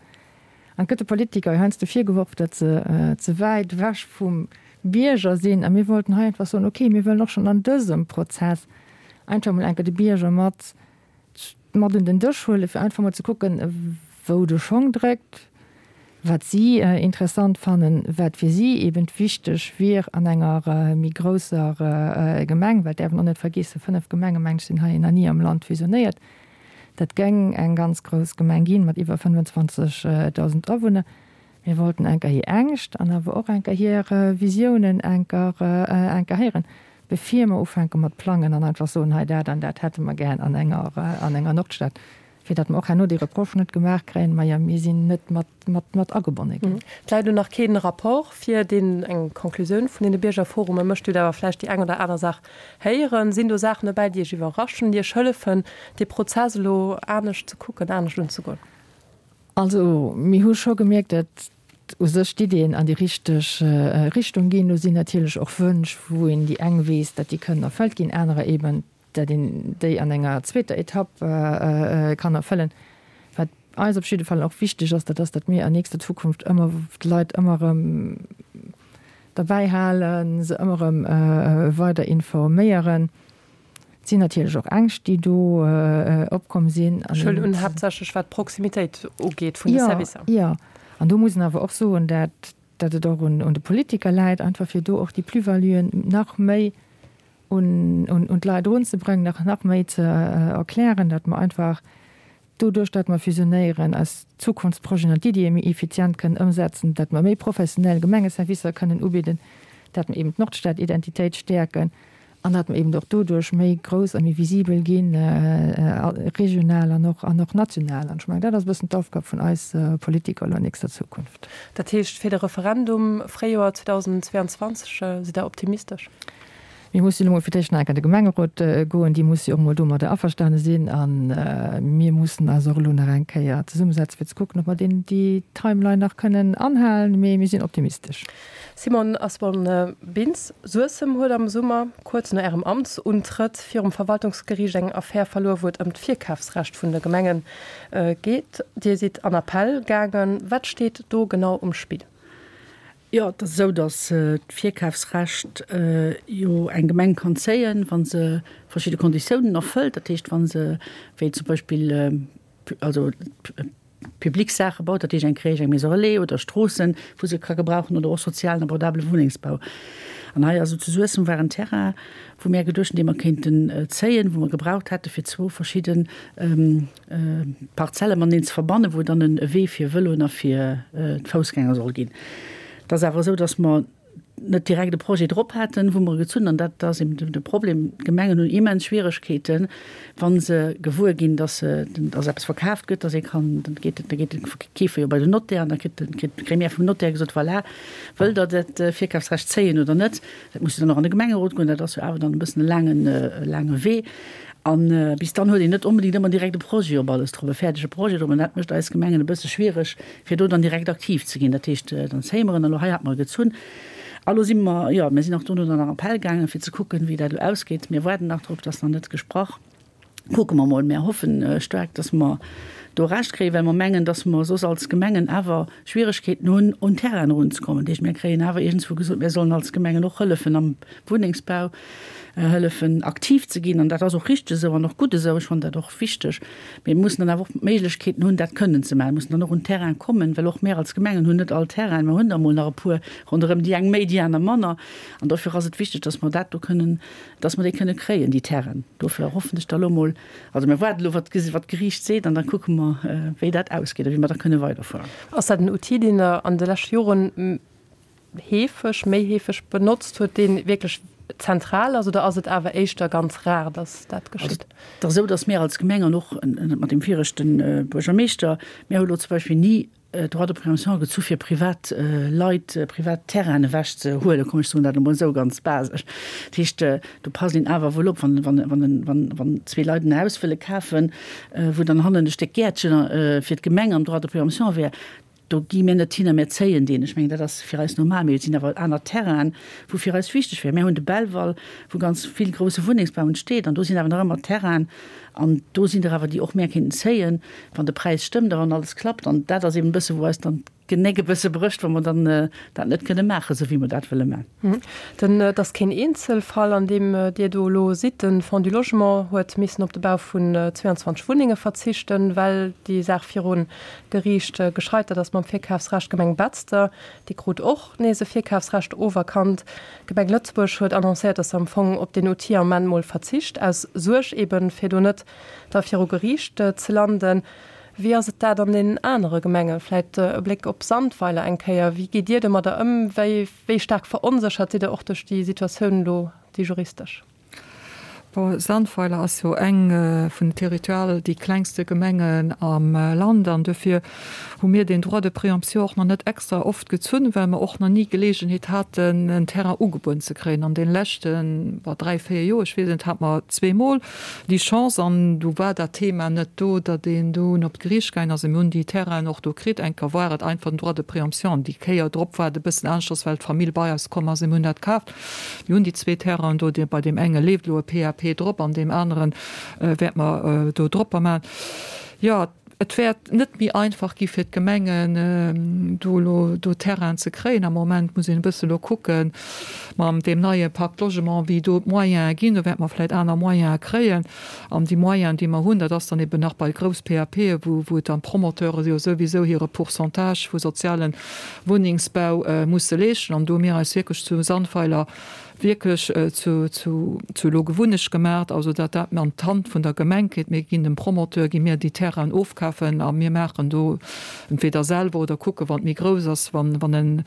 An et gëtt de Politiker jo heiansdo virgeworf, datt se ze wäit ewech vum Bierger sinn. A mir wollten hei einfach soen, okay, mir wëllen och schonn an dësem Prozess einfach emol enker de Bierger mat mat un den Dësch huelen, fir einfach mol ze kucken, wou de Schong dréckt, wat si interessant fannen, wat fir si eben wichteg wier an enger méi grousser Gemeng, well et däerf een och net vergeessen, 5 Gemenge meng ech sinn hei nach ni am Land fusionéiert. Dat géing eng ganz grouss Gemeng ginn, mat iwwer 25.000 Awunner. Mir wollten enker hir Ängscht an awer och enker hir Visiounen enker enker héieren. bevir mer ufänke mat plangen an einfach soen, hei dat an dat hätte mer gär an enger, an enger Nordstad, fir datt mer och herno déi Reproche net gemaach kréien, majo mir sinn net mat, mat, mat agebonne ginn. Et läit elo nach kee Rapport vir, deen eng Conclusioun vun deene Biergerforume mécht. Dir hutt awer vläicht déi eng oder aner Saach héieren. Sinn do Saachen dobäi, déi Iech iwwerraschen, déi Iech hëllefen, dee Prozess elo anescht ze kucken, anescht unzegoen? Also mir hu scho gemierkt, datt u sech d'Iddien an déi richteg Richtung ginn. Do sinn natierlech och Wënsch, wou een déi eng weess, datt déi kënnen erfëllt ginn, anerer eeben, datt een déi an enger zweeter Etapp kann erfëllen. Wat eis op jidde Fall och wichteg ass, dat ass, datt mir an nächster Zukunft ëmmer d'Leit ëmmer erëm derbäi halen, se ëmmer erëm weider informéieren. Et sinn natierlech och Ängscht, déi do opkomm sinn. Ech huelen un, haaptsächlech wat d'Proximitéit ugeet vun de Servicer. Jo, an do muss een awer och soen, dat dat et och un de Politiker läit, einfach fir do och déi Plus-valuen nach méi un d'Leit erunzebréngen, nach nach méi ze erklären, datt mer einfach doduerch, datt mer fusionéieren, eis Zukunftsprojeten an d'Iddie méi effizient kënnen ëmsetzen, datt mer méi professionell Gemengeservicer kënnen ubidden, datt mer eben d'Nordstad-Identitéit stäerken. An datt mer eben och doduerch méi grouss a méi visibel ginn, regional an och, an och national. An ech mengen, dat ass e bëssen d'Aufgab vun eis Politiker elo an nächster Zukunft. Dat heescht, fir de Referendum Fréijoer 2022 sidd Der optimistesch? Mir mussen elo mol fir d'éischt nach eng Kéier an de Gemengerot goen. Déi musse jo och mol domadder averstane sinn. A mir mussen eis och elo nach eng Kéier zesummesetzen, fir ze kucken, ob mer deen, déi Timeline nach kënnen anhalen. Mee mir sinn optimistesch. Simone Asborn-Bintz, Suessem huet am Summer, kuerz no Ärem Amtsuntrëtt, virum Verwaltungsgeriicht eng Affär verluer, wou et ëm d'Virkafsrecht vun de Gemenge geet. Dir sidd an Appell gaangen. Wat steet do genau um Spill? Jo, et ass esou, datt d'Virkafsrecht jo eng Gemeng kann zéien, wa se verschidde Konditiounen erfëllt. Dat heescht, wa se, wéi zum Beispill, also public Saache baut, dat heescht eng Crèche, eng Maison relais oder Stroossen, wou se ka gebrauchen oder och sozialen abordabele Wunnengsbau. An hei also zu Suessem war en Terrain, wou mär geduecht hunn, dee mer kéinten zéien, wou mer gebraucht hätte fir zwou verschidde Parzelle mateneen ze verbannen, wou dann e Wee fir Vëloen a fir d'Foussgänger soll ginn. Et ass awer esou, datt mer net direkt e Projet drop haten, wou mer e gezunn, an dat ass eben de Problem, d'Gemengen hunn immens Schwieregkeeten, wa se gewuer ginn, dass se, dass eppes verkaaft gëtt, dass ee kann, dann geet, da geet de Keefer jo bei den Notaire an da kritt de, kritt d'Gremière vum Notaire gesot, voilà, wëllt Der dat Virkafsrecht zéien oder net? Dat muss jo dann och an de Gemengerot goen, dat ass jo awer dann e bëssen e laangen, e laange Wee. A bis dann huet een net onbedéngt ëmmer direkt e Projet op alles drop, e fäerdege Projet drop. An dat mécht eis Gemengen e bësse schwiereg, fir do dann direkt aktiv ze ginn. Dat heescht, dann zéie mer en. Elo hei hat mer e gezunn. A lo si mer, jo, mir sinn och dono dann nach Appell gaangen, fir ze kucken, wéi dat elo ausgeet. Mir waarden nach drop, et ass nach net gesprach. Kucke mer mol. Mir hoffen staark, dass mer do Recht kréien, well mer mengen, dass mer soss als Gemengen awer Schwieregkeeten hunn, un Terrainen erunzekommen. Dat heescht, mir kréien awer iergendswou gesot, mir sollen als Gemengen och hëllefen am Wunnengsbau, hëllefen aktiv ze ginn. An dat ass och richteg esou an och gutt esou. Ech fannen dat och wichteg. Mee mir mussen dann awer och d'Méiglechkeeten hunn, dat kënnen ze maachen. Mir mussen dann och un Terrain kommen, well och mir als Gemengen hunn net all Terrainen. Mir hunn der emol nach e puer ronderëm, déi eng méi, déi aner manner. An dofir ass et wichteg, dass mer dat do kënnen, dass mer déi kënne kréien, déi Terrainen. Dofir hoffen ech da elo emol, also mir waarden elo, wat d'Geriicht seet, an da kucke mer, wéi dat ausgeet a wéi mer da kënne weiderfueren. Ass dat en Outil, deen Der an de leschte Joren heefeg, méi heefeg benotzt huet, dee wierklech zentral ass, oder ass et awer éischter ganz rar, datt dat geschitt? Et ass esou, datt mir als Gemeng an och mat deem viregte Buergermeeschter, mir hu lo zum Beispill ni Droit de préemption gezu fir privat Leit privat Terrainen ewech ze huelen, komm ech soen dat elo mol esou ganz basesch. Dat heescht, do passt een awer wuel op, wann, wann, wann, wann, wann zwee Leit en Haus wëlle kafen, wou dann hannen e Stéck Gäertchen fir d'Gemeng am Droit de préemption wär, Do gi mir net hin a mir zéien deen. Ech mengen, dat ass fir eis normal. Mee et sinn awer aner Terrainen, wou fir eis wichteg wär. Mir hunn de Belval, wou ganz vill grousse Wunnengsbau entsteet. An do sinn awer nach ëmmer Terrainen. An do sinn der awer, déi och mär kéinten zéien, wann de Präis stëmmt a wann alles klappt. An dat ass eben e bësse wou eis dann d'Genéck e bësse brécht, wa mer dann dat net kënne maachen, esou wéi mer dat wëlle maachen. Den, et ass keen Eenzelfall, an deem Dir do elo sidd. De Fonds du Logement huet missen op de Bau vun 22 Wunnenge verzichten, well déi Saach virun Geriicht gescheitert ass mam Virkafsrecht. D'Gemeng Betzder, déi krut och nees e Virkafsrecht oferkannt. D'Gemeng Lëtzebuerg huet annoncéiert, datt se am Fong op deen Outil am Ament mol verzicht, aus Suerg eben, fir do net da viru Geriicht ze landen. Wéi ass et dat an den anere Gemengen? Vläit e Bléck op Sandweiler eng Kéier. Wéi gitt Dir domadder ëm? Wéi staark veronséchert sidd Der och duerch déi Situatioun elo? déi juristesch? Bon, Sandweiler ass jo eng vun den territorial déi klengste Gemengen am Land an dofir hu mir deen Droit de préemption och nach net extra oft gezunn, well mer och nach ni Geleegenheet haten, en Terrain ugebueden ze kréien. An deene leschten, bon, dräi, véier Joer, ech weess et net, hate mer zweemol déi Chance an du war dat Thema net do, datt een dunn op d'Geriicht gaangen ass. A mir hunn déi Terrainen och do kritt. Eng Kéier war et einfach den Droit de préemption an déi Kéier drop war et e bëssen aneschters, well d'Famill bei eis komm ass a mir hunn dat kaaft. Mir hunn déi zwee Terrainen do, bei deem enge leeft elo e PAP drop, an deem anere wäerte mer do dropper maachen. Jo, et wäert net méi einfach gi fir d'Gemengen, do elo do Terrainen ze kréien. Am Moment muss een e bësse elo kucken, mam deem neie Pacte Logement, wéi do d'Moyene ginn. Do wäerte mer vläicht aner Moyene kréien. An déi Moyenen, déi mer hunn, dat ass dann eben nach bei grouss PAPe, wou wou et dann d'Promoteure jo souwisou hire Pourcentage vu soziale Wunnengsbau musse leeschten. An do hu mir eis wierklech zu Sandweiler wierklech zu zu zu elo Gewunnecht gemaacht, also datt dat an d'Hand vun der Gemeng geet. Mir ginn dem Promoteur, gi mir déi Terrainen ofkafen a mir maachen do entweder selwer oder kucke wann et méi grouss ass, wann wann en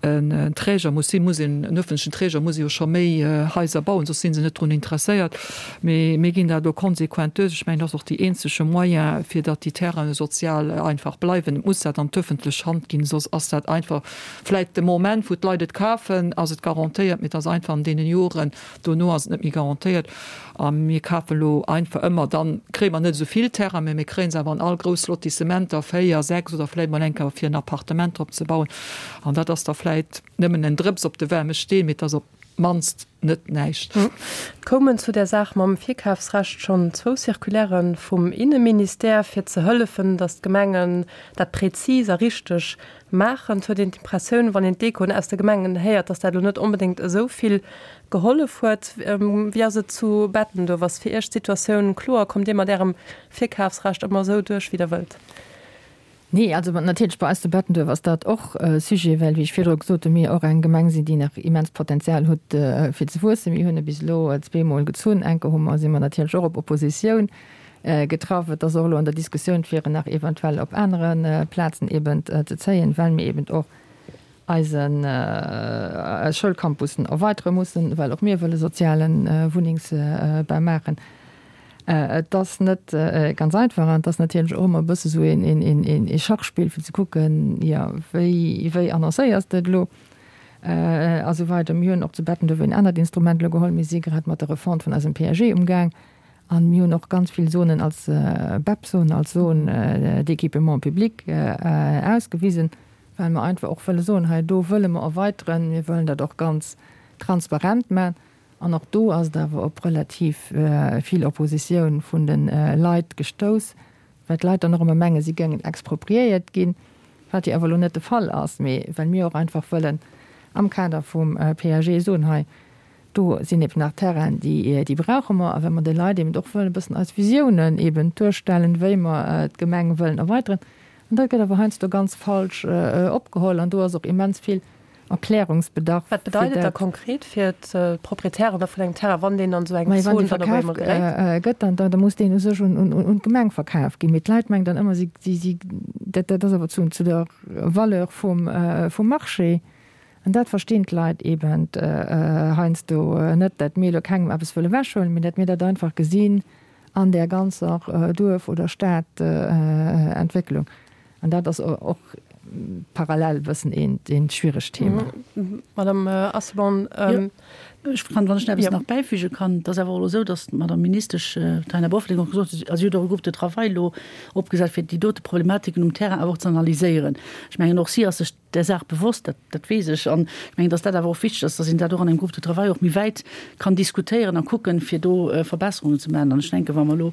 en Träger muss sinn, muss een, en öffentlechen Träger muss jo scho méi Haiser bauen, soss si se net drun interesséiert. Mee mir ginn dat elo konsequent duerch. Ech mengen, dat ass och déi eenzege Moyen, fir datt déi Terrainen sozial einfach bleiwen. Et muss dat an d'öffentlech Hand ginn, soss ass dat einfach vläit de Moment, wou d'Leit et kafen, ass et garantéiert, mee et ass einfach an deene Joren dono ass et net méi garantéiert. A mir kafen elo einfach ëmmer, dann kréie mer net esou vill Terrain, mä mir kréie se awer an all grouss Lotissementer, 4, 6 oder vläit mol eng Kéier fir en Appartement drop ze bauen. An dat ass da vläit nëmmen en Drëps op de waarme Steen, mee et ass op d'mannst net näischt. Et koumen zu där Saach mam Virkafsrecht schonn zwou Circulairë vum Inneministère, fir ze hëllefen, datt d'Gemengen dat prezis a richteg maachen. Et huet een d'Impressioun, wann een d'Echoen aus de Gemengen héiert, datt dat elo net onbedéngt esou vill gehollef huet. Wéi ass et zu Bettenduerf? Ass fir Iech d'Situatioun kloer? Kommt Dir mat Ärem Virkafsrecht ëmmer esou duerch, wéi Der wëllt? Nee, also natierlech bei eis zu Bettenduerf ass dat och e Sujet, well, wéi ech virdru gesot hunn, mir och eng Gemeng sinn, déi nach immens Potenzial huet fir ze wuessen. Mir hunn e bis elo zweemol gezunn. Eng Kéier hu mer, si mer natierlech och op Oppositioun getraff. Et ass och elo an der Diskussioun, fir en nach eventuell op anere Plazen eben ze zéien, well mir eben och eisen Schoulcampussen erweitere mussen, well och mir wëlle soziale Wunnengsbau maachen. Et ass net ganz einfach an et ass natierlech och ëmmer e bësse sou ee Schachspill, fir ze kucken, jo, wéi, wéi annoncéiers de et elo a sou weider. Mir hunn och zu Bettenduerf een anert Instrument elo geholl. Mir si grad mat der Refonte vun eisem PAG umgaang an mir hunn och ganz vill Zonen als BEP-Zone, als Zone d'équipement public ausgewisen, well mer einfach och wëlle soen, hei do wëlle mer erweiteren, mir wëllen dat och ganz transparent maachen. An och do ass et awer op relativ vill Oppositioun vun de Leit gestouss, well d'Leit dann och ëmmer mengen, si géingen expropriéiert ginn, wat jo awer elo net de Fall ass, mee well mir och einfach wëllen am Kader vum PAG soen, hei do sinn eben nach Terrainen, déi brauche mer, a well mer de Leit eben och wëllen e bëssen eis Visiounen eben duerstellen, wéi mer d'Gemeng wëllen erweiteren. An dat gëtt awer heiansdo ganz falsch opgeholl an do ass och immens vill Erklärungsbedarf. Wat bedeit et da konkret fir d'Proprietären da vun engem Terrain, wann deen an esou eng Zon dann op eemol geréit? Wann dee verkaf gëtt, dann da muss deen u sech un d'Gemeng verkaf ginn. Mee d'Leit mengen dann ëmmer, si si dat dat ass awer zu zu der Valeur vum vum Marché. An dat verstinn d'Leit eben heiansdo net, dat mir elo kengem eppes wëlle wechhuelen, mee dat mir dat einfach gesinn an där ganzer Duerf oder Stadentwécklung. An dat ass och parallel e bëssen eent schwieregt Thema. Madame Asselborn. Jo, ech kann, wann ech nach eppes nach bäifüge kann, et ass awer och elo esou, datt d'Madame Ministesch Taina Bofferding och gesot huet, also si huet och e Groupe de travail elo opgesat, fir déi dote Problematiken um Terrain awer och ze analyséieren. Ech mengen, och si ass sech där Saach bewosst, dat, dat weess ech. An ech mengen, dass dat awer och wichteg ass, dass een dat och an engem Groupe de travail och méi wäit kann diskutéieren a kucken, fir do Verbesserungen ze maachen. An ech denken, wa mer elo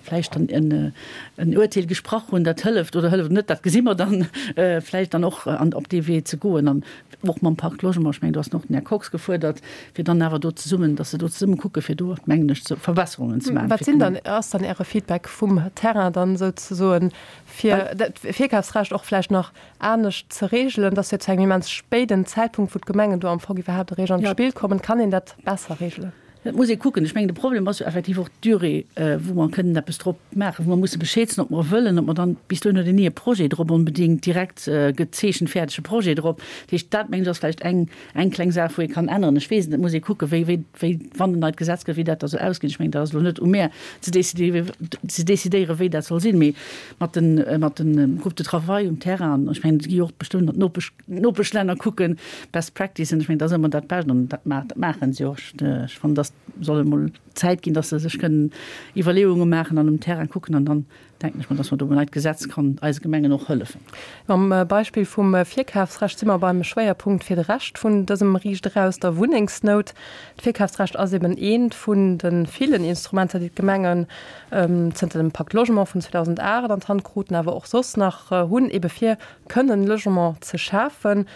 vläicht dann en, en Uerteel gesprach hunn, dat hëlleft oder hëlleft net, dat gesi mer dann, vläicht dann och an, op dee Wee ze goen an och mam Pacte Logement, ech mengen, do ass och den Här Kox gefuerdert, fir dann awer do zesummen, dass se do zesumme kucken, fir do, mengen ech, Verbesserungen ze maachen. Wat sinn dann, ass dann Äre Feedback vum Terrain dann souzesoen, fir dat Virkafsrecht och vläicht nach anescht ze reegelen, dass jo zu engem immens spéiden Zäitpunkt, wou d'Gemengen do am Fong iwwerhaapt eréischt an d'Spill kommen, kann een dat besser reegelen? Dat muss ee kucken. Ech mengen, de Problem ass jo effektiv och d'Durée, wou mer kënnen eppes drop maachen, wou mer musse Bescheed soen, ob mer wëllen, ob mer dann, bis dohin huet een ni e Projet drop onbedéngt direkt gezeechent, fäerdege Projet drop. Dat heescht, dat mengen ech ass vläicht eng, eng kleng Saach, wou ee kann änneren. Ech weess et net, et muss ee kucken, wéi, wéi, wéi, wann en neit Gesetz gëtt, wéi dat da soll ausginn. Ech mengen, dat ass elo net u mär ze décidéieren, wéi dat soll sinn, mee mat den, mat de Groupes de travail um Terrain, an ech mengen, et gi jo och bestëmmt nach d'Nopesch, Nopeschlänner kucken, Best Practicen, ech mengen, dat ass ëmmer dat Bescht an dat maache se och. Ech fannen, dass soll emol Zäit ginn, dass se sech kënnen Iwwerleeunge maachen an um Terrain kucken an dann denken ech mer, dass mer do um neit Gesetz kann eise Gemengen och hëllefen. Mam Beispill vum Virkafsrecht si mer beim Schwéierpunkt fir de Rescht vun dësem Riicht eraus, der Wunnengsnout. D'Virkafsrecht ass eben eent vun de villen Instrumenter, déi d'Gemengen zënter dem Pacte Logement vun 2008 an d'Hand kruten, awer och soss nach hunn, ebe fir kënnen Logement ze schafen.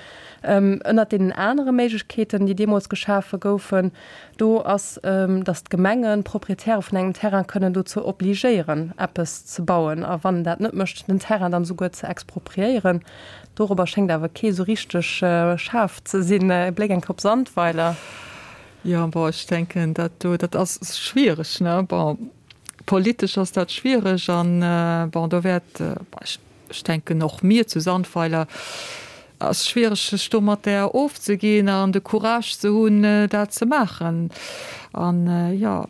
Ënnert deenen anere Méiglechkeeten, déi deemools geschafe goufen, do ass, datt d'Gemengen d'Proprietäre vun engem Terrain kënnen dozou obligéieren, eppes ze bauen, a wann en dat net mécht, den Terrain dann esouguer ze expropriéieren. Dorobber schéngt awer kee esou richteg schaarf ze sinn. E Bléck eng Kéier op Sandweiler. Jo, bon, ech denken, dat do, dat ass schwiereg, ne? Bon, politesch ass dat schwiereg an, bon, do wäert, ech, Ech denken och mir zu Sandweiler ass schwiereg sech domatter ofzeginn an de Courage ze hunn dat ze maachen an jo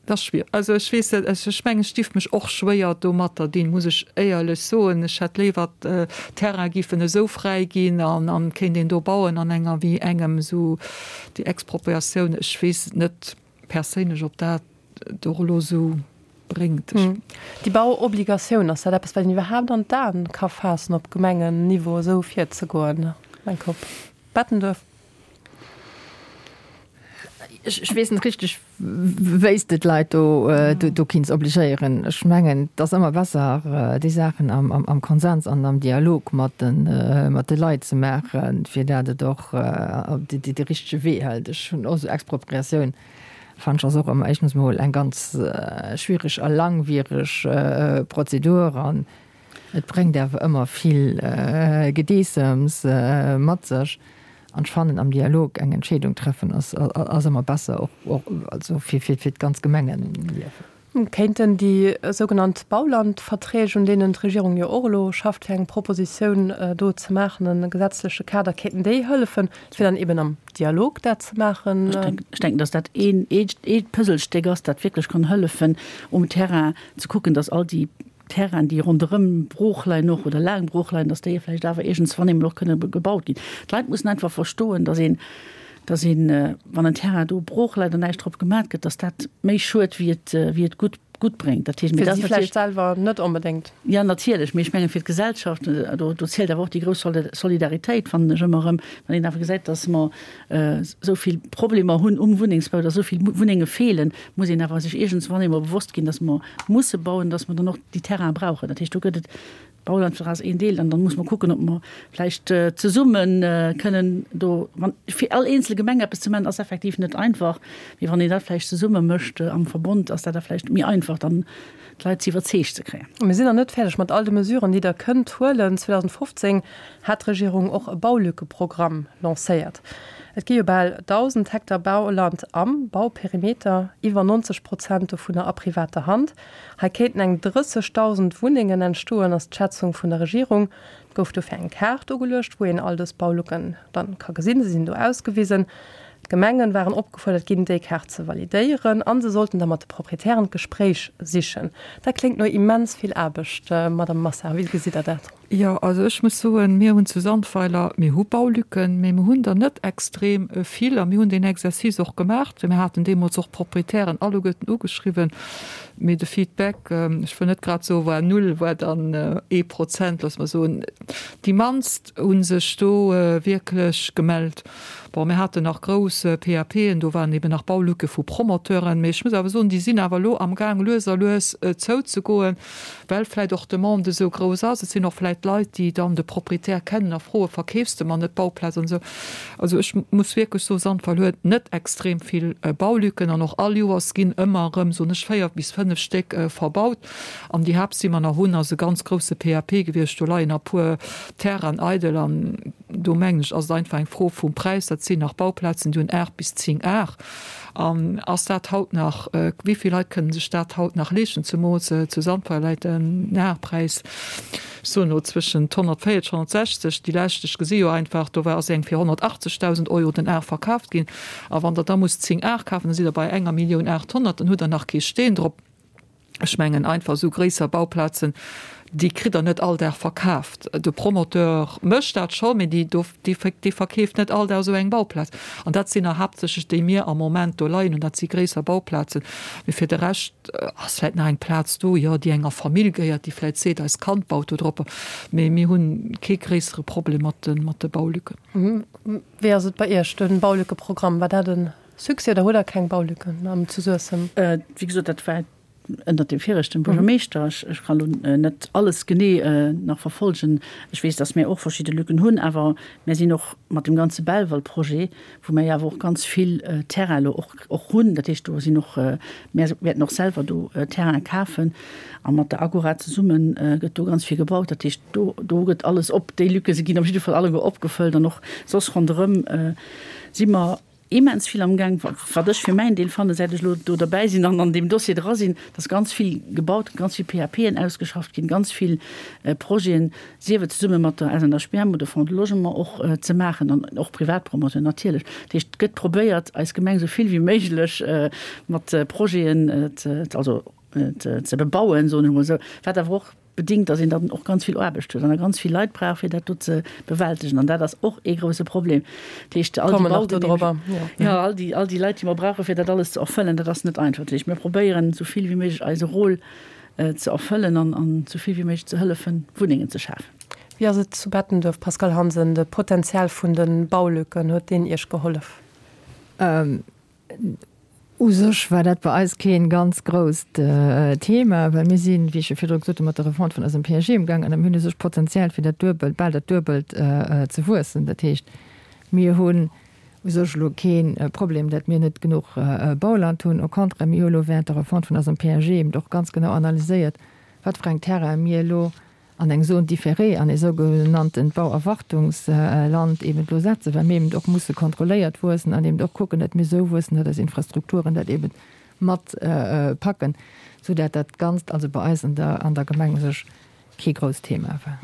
et ass schwiereg. Also ech weess net, ech mengen ech dierf mech och schwéier domatter dinn, muss ech éierlech soen. Ech hätt léiwer d'Terraine giffen esou fräi ginn an an kéint een do bauen an enger wéi engem esou déi Expropriatioun, ech weess net perséinlech ob dat et och elo esou bréngt. Déi Bauobligatioun, ass dat eppes, wat een iwwerhaapt an d'Aen ka faassen, op Gemengenniveau esou virzegoen? Mein Kop. Bettenduerf. Ech weess net richteg, wéi s de d'Leit do kinns obligéieren. Ech mengen, et ass ëmmer besser, déi Saachen am Konsens an am Dialog mat de Leit ze maachen, fir dat et och de richtege Wee hëlt. Ech hunn och esou Expropriatioun Fannen ech ass och ëmmer éischtens mol eng ganz schwiereg a langwiereg Prozedur an et bréngt awer ëmmer vill Gedeessems mat sech. An ech fannen am Dialog eng Entscheedung treffen ass ëmmer besser, och also fir d'ganz Gemengenliewen. Kéinten déi sougenannt Baulandverträg, un deenen d'Regierung jo och elo schafft, fir eng Propositioun do ze maachen, e gesetzleche Kader, kéinten déi hëllefen, fir dann eben am Dialog dat ze maachen? Ech denken, datt dat een Puzzlestéck ass, dat wierklech kann hëllefen, um Terrain ze kucken, datt all déi Terrainen, déi ronderëm brooch leien och oder laang brooch leien, datt déi vläicht awer iergendswann eemol och kënne gebaut ginn. D'Leit mussen einfach verstoen, datt een, datt een, wann en Terrain do brooch läit an näischt drop gemat gëtt, datt dat méi schued wéi et, wéi et gutt, gutt bréngt. Dat heescht, mee dat ass natierlech. Fir si vläicht selwer net onbedéngt. Jo, natierlech, mee ech mengen fir d'Gesellschaft, do, do zielt awer och déi grouss Solidaritéit, fannen ech ëmmer erëm, wann een awer gesäit, datt mer esou vill Problemer hunn um Wunnengsbau, datt esou vill Wunnenge feelen, muss een awer sech iergendswann eemol bewosst ginn, datt mer musse bauen, datt mer dann och déi Terraine brauchen. Dat heescht, do gëtt et, d'Baulandvertrag ass een Deel, an dann muss mer kucken, ob mer vläicht zesumme kënnen do, wann, fir all eenzel Gemeng eppes ze maachen, ass effektiv net einfach, mee wann een dat vläicht zesumme mécht am Verbond, ass dat da vläicht méi einfach dann d'Leit ze iwwerzeegt ze kréien. Mir sinn nach net fäerdeg mat all de Mesuren, déi Der kënnt huelen. 2015 hat d'Regierung och e Baulückeprogramm lancéiert. Et gi jo bal 1.000 Hektar Bauland am Bauperimeter, iwwer 90 Prozent dovunner a privater Hand. Hei kéinten eng 30.000 Wunnengen entstoen, ass d'Schätzung vun der Regierung. Et gouf dofir eng Kaart ugeluecht, wou een all dës Baulücken dann ka gesinn. Se sinn do ausgewisen. D'Gemengen waren opgefuerdert ginn, déi Kaart ze validéieren a se sollten da mat de Proprietären d'Gespréich sichen. Dat kléngt no immens vill Aarbecht, Madame Massa. Wéi gesitt Der dat? Jo, also ech muss soen, mir hunn zu Sandweiler, mir hu Baulücken, mee mir hunn der net extrem vill a mir hunn deen Exercice och gemaach. Mir haten deemools och d'Proprietären alleguerten ugeschriwwen, mee de Feedback, ech wëll net grad soen, war null, war dann ee Prozent, loosse mer soen. Déi mannst hu sech do wierklech gemellt. Bon, mir haten nach grouss PAPen, do waren eben nach Baulücke vu Promoteuren, mee ech muss awer soen, déi sinn awer elo amgaang lues a lues zouzegoen, well vläicht och d'Demande esou grouss ass. Et sinn och vläicht Leit, déi dann de Proprietär kennen a froen, Verkeefs de mer net d'Bauplaz an esou. Also ech muss wierklech soen, Sandweiler huet net extrem vill Baulücken an och all Joers ginn ëmmer erëm, soen ech, 4 bis 5 Stéck verbaut. An déi Haaptsi mer nach hunn, ass e ganz grousse PAP gewiescht, do leien e puer Terrainen eidel an. do mengen ech, ass et einfach eng Fro vum Präis. Dat sinn nach Bauplazen, déi hunn 8 bis 10 Ar. An ass dat haut nach, wéi vill Leit kënnen sech dat haut nach leeschten, zemools zu Sandweiler läit den Arpräis, ech soen elo zwëschent 140, 160. Déi lescht, ech gesi jo einfach, do war ass eng fir 180.000 Euro den Ar verkaaft ginn. A wann Der da musst 10 Ar kafen, da sidd Der bei enger Millioun 800, dann hutt Der nach kee Steen drop. Ech mengen einfach esou gréisser Bauplazen, déi kritt Der net all Dag verkaaft. De Promoteur mécht dat scho, mee déi do, dee dee verkeeft net all Dag esou eng Bauplaz. An dat sinn der haaptsächlech déi mir am Moment do leien hunn. Dat si gréisser Bauplazen. Mee fir de Rescht ass vläicht nach eng Plaz do, jo, déi enger Famill gehéiert, déi vläicht seet, eist Kand baut do drop. Mee mir hu kee gréissere Problem mat de, mat de Baulücken. Wéi ass et bei Iech, de Baulückeprogramm, war dat e Succès oder hutt Der keng Baulücken am zu Suessem? Wéi gesot, dat war ënnert dem viregten Buergermeeschter. Ech kann elo net alles genee nach verfolgen. Ech weess, datt mir och verschidde Lücken hunn, awer mir sinn och mat dem ganze Belval-Projet, wou mir jo awer och ganz vill Terrain elo och och hunn, dat heescht do sinn och, mir wäerten och selwer do Terraine kafen a mat der Agora zesumme gëtt do ganz vill gebaut. Dat heescht do do gëtt alles op, déi Lücke se ginn op jidde Fall alleguer opgefëllt an och soss ronderëm si mer immens vill amgaang, wat ech fir mäin Deel fannen, säit ech elo do derbäi sinn an an deem Dossier dra sinn, dass ganz vill gebaut gëtt, ganz vill PAPen ausgeschafft ginn, ganz vill Projeten, sief et zesumme mat der SNHBM oder Fonds de Logement och ze maachen an och Privatpromoteuren natierlech. Dat heescht, et gëtt probéiert, eis Gemeng esou vill wéi méiglech mat Projeten ze, also ze bebauen, soen ech emol esou, wat awer och bedingt, datt een dann och ganz vill Aarbecht huet an da ganz vill Leit brauch, fir dat do ze bewältegen. An dat ass och ee grouse Problem. Dat heescht, all déi Baugenehmegungen, jo, all déi, all déi Leit, déi mer brauchen, fir dat alles ze erfëllen, dat ass net einfach. Dat heescht, mir probéieren, esou vill wéi méiglech eise Rôle ze erfëllen an, an esou vill wéi méiglech ze hëllefen, Wunnengen ze schafen. Wéi ass et zu Bettenduerf, Pascale Hansen, de Potenzial vun de Baulücken, huet deen Iech gehollef? U sech war dat bei eis kee ganz grousst Thema, well mir sinn, wéi ech jo virdru gesot hunn, mat der Refonte vun eisem PAG emgaangen a mir hunn u sech d'Potenzial fir dat duebelt, bal dat Duebelt ze wuessen. Dat heescht, mir hunn u sech elo kee Problem, datt mir net genuch Bauland hunn. Au contraire, mir hu elo während der Refonte vun eisem PAG eben och ganz genau analyséiert, wat fir eng Terraine mir elo an eng Zone différée, an ee sougenanntent Bauerwartungsland eben elo setzen, well mir eben och musse kontrolléiert wuessen an eben och kucken, datt mir esou wuessen, datt eis Infrastrukturen dat eben mat packen, soudatt dat Ganzt also bei eis an der an der Gemeng u sech kee grousst Thema war.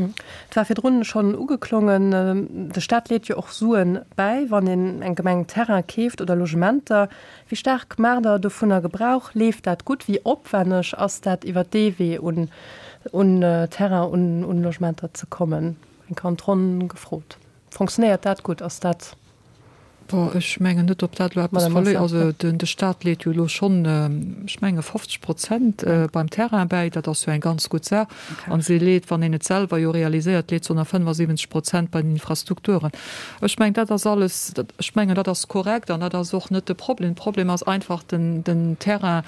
Et war virdrun schonn ugeklongen, de Staat leet jo och Suen bäi, wann een eng Gemeng Terrain keeft oder Logementer. Wéi staark maacht Der dovunner Gebrauch? Leeft dat gutt? Wéi opwenneg ass dat, iwwer dee Wee un un Terrain, un un Logementer ze kommen? Eng Kéier an d'Ronn gefrot. Fonctionnéiert dat gutt? Ass dat. Bon, ech mengen net, ob dat elo eppes verléiert. Also den de Staat leet jo elo schonn, ech menge 50 Prozent beim Terrain bäi. Dat ass jo eng ganz gutt Saach. An se leet, wann een et selwer jo realiséiert, leet se och nach 75 Prozent bei den Infrastrukturen. Ech mengen, dat ass alles, ech mengen, dat ass korrekt an dat ass och net de Problem. De Problem ass einfach, den, den Terrain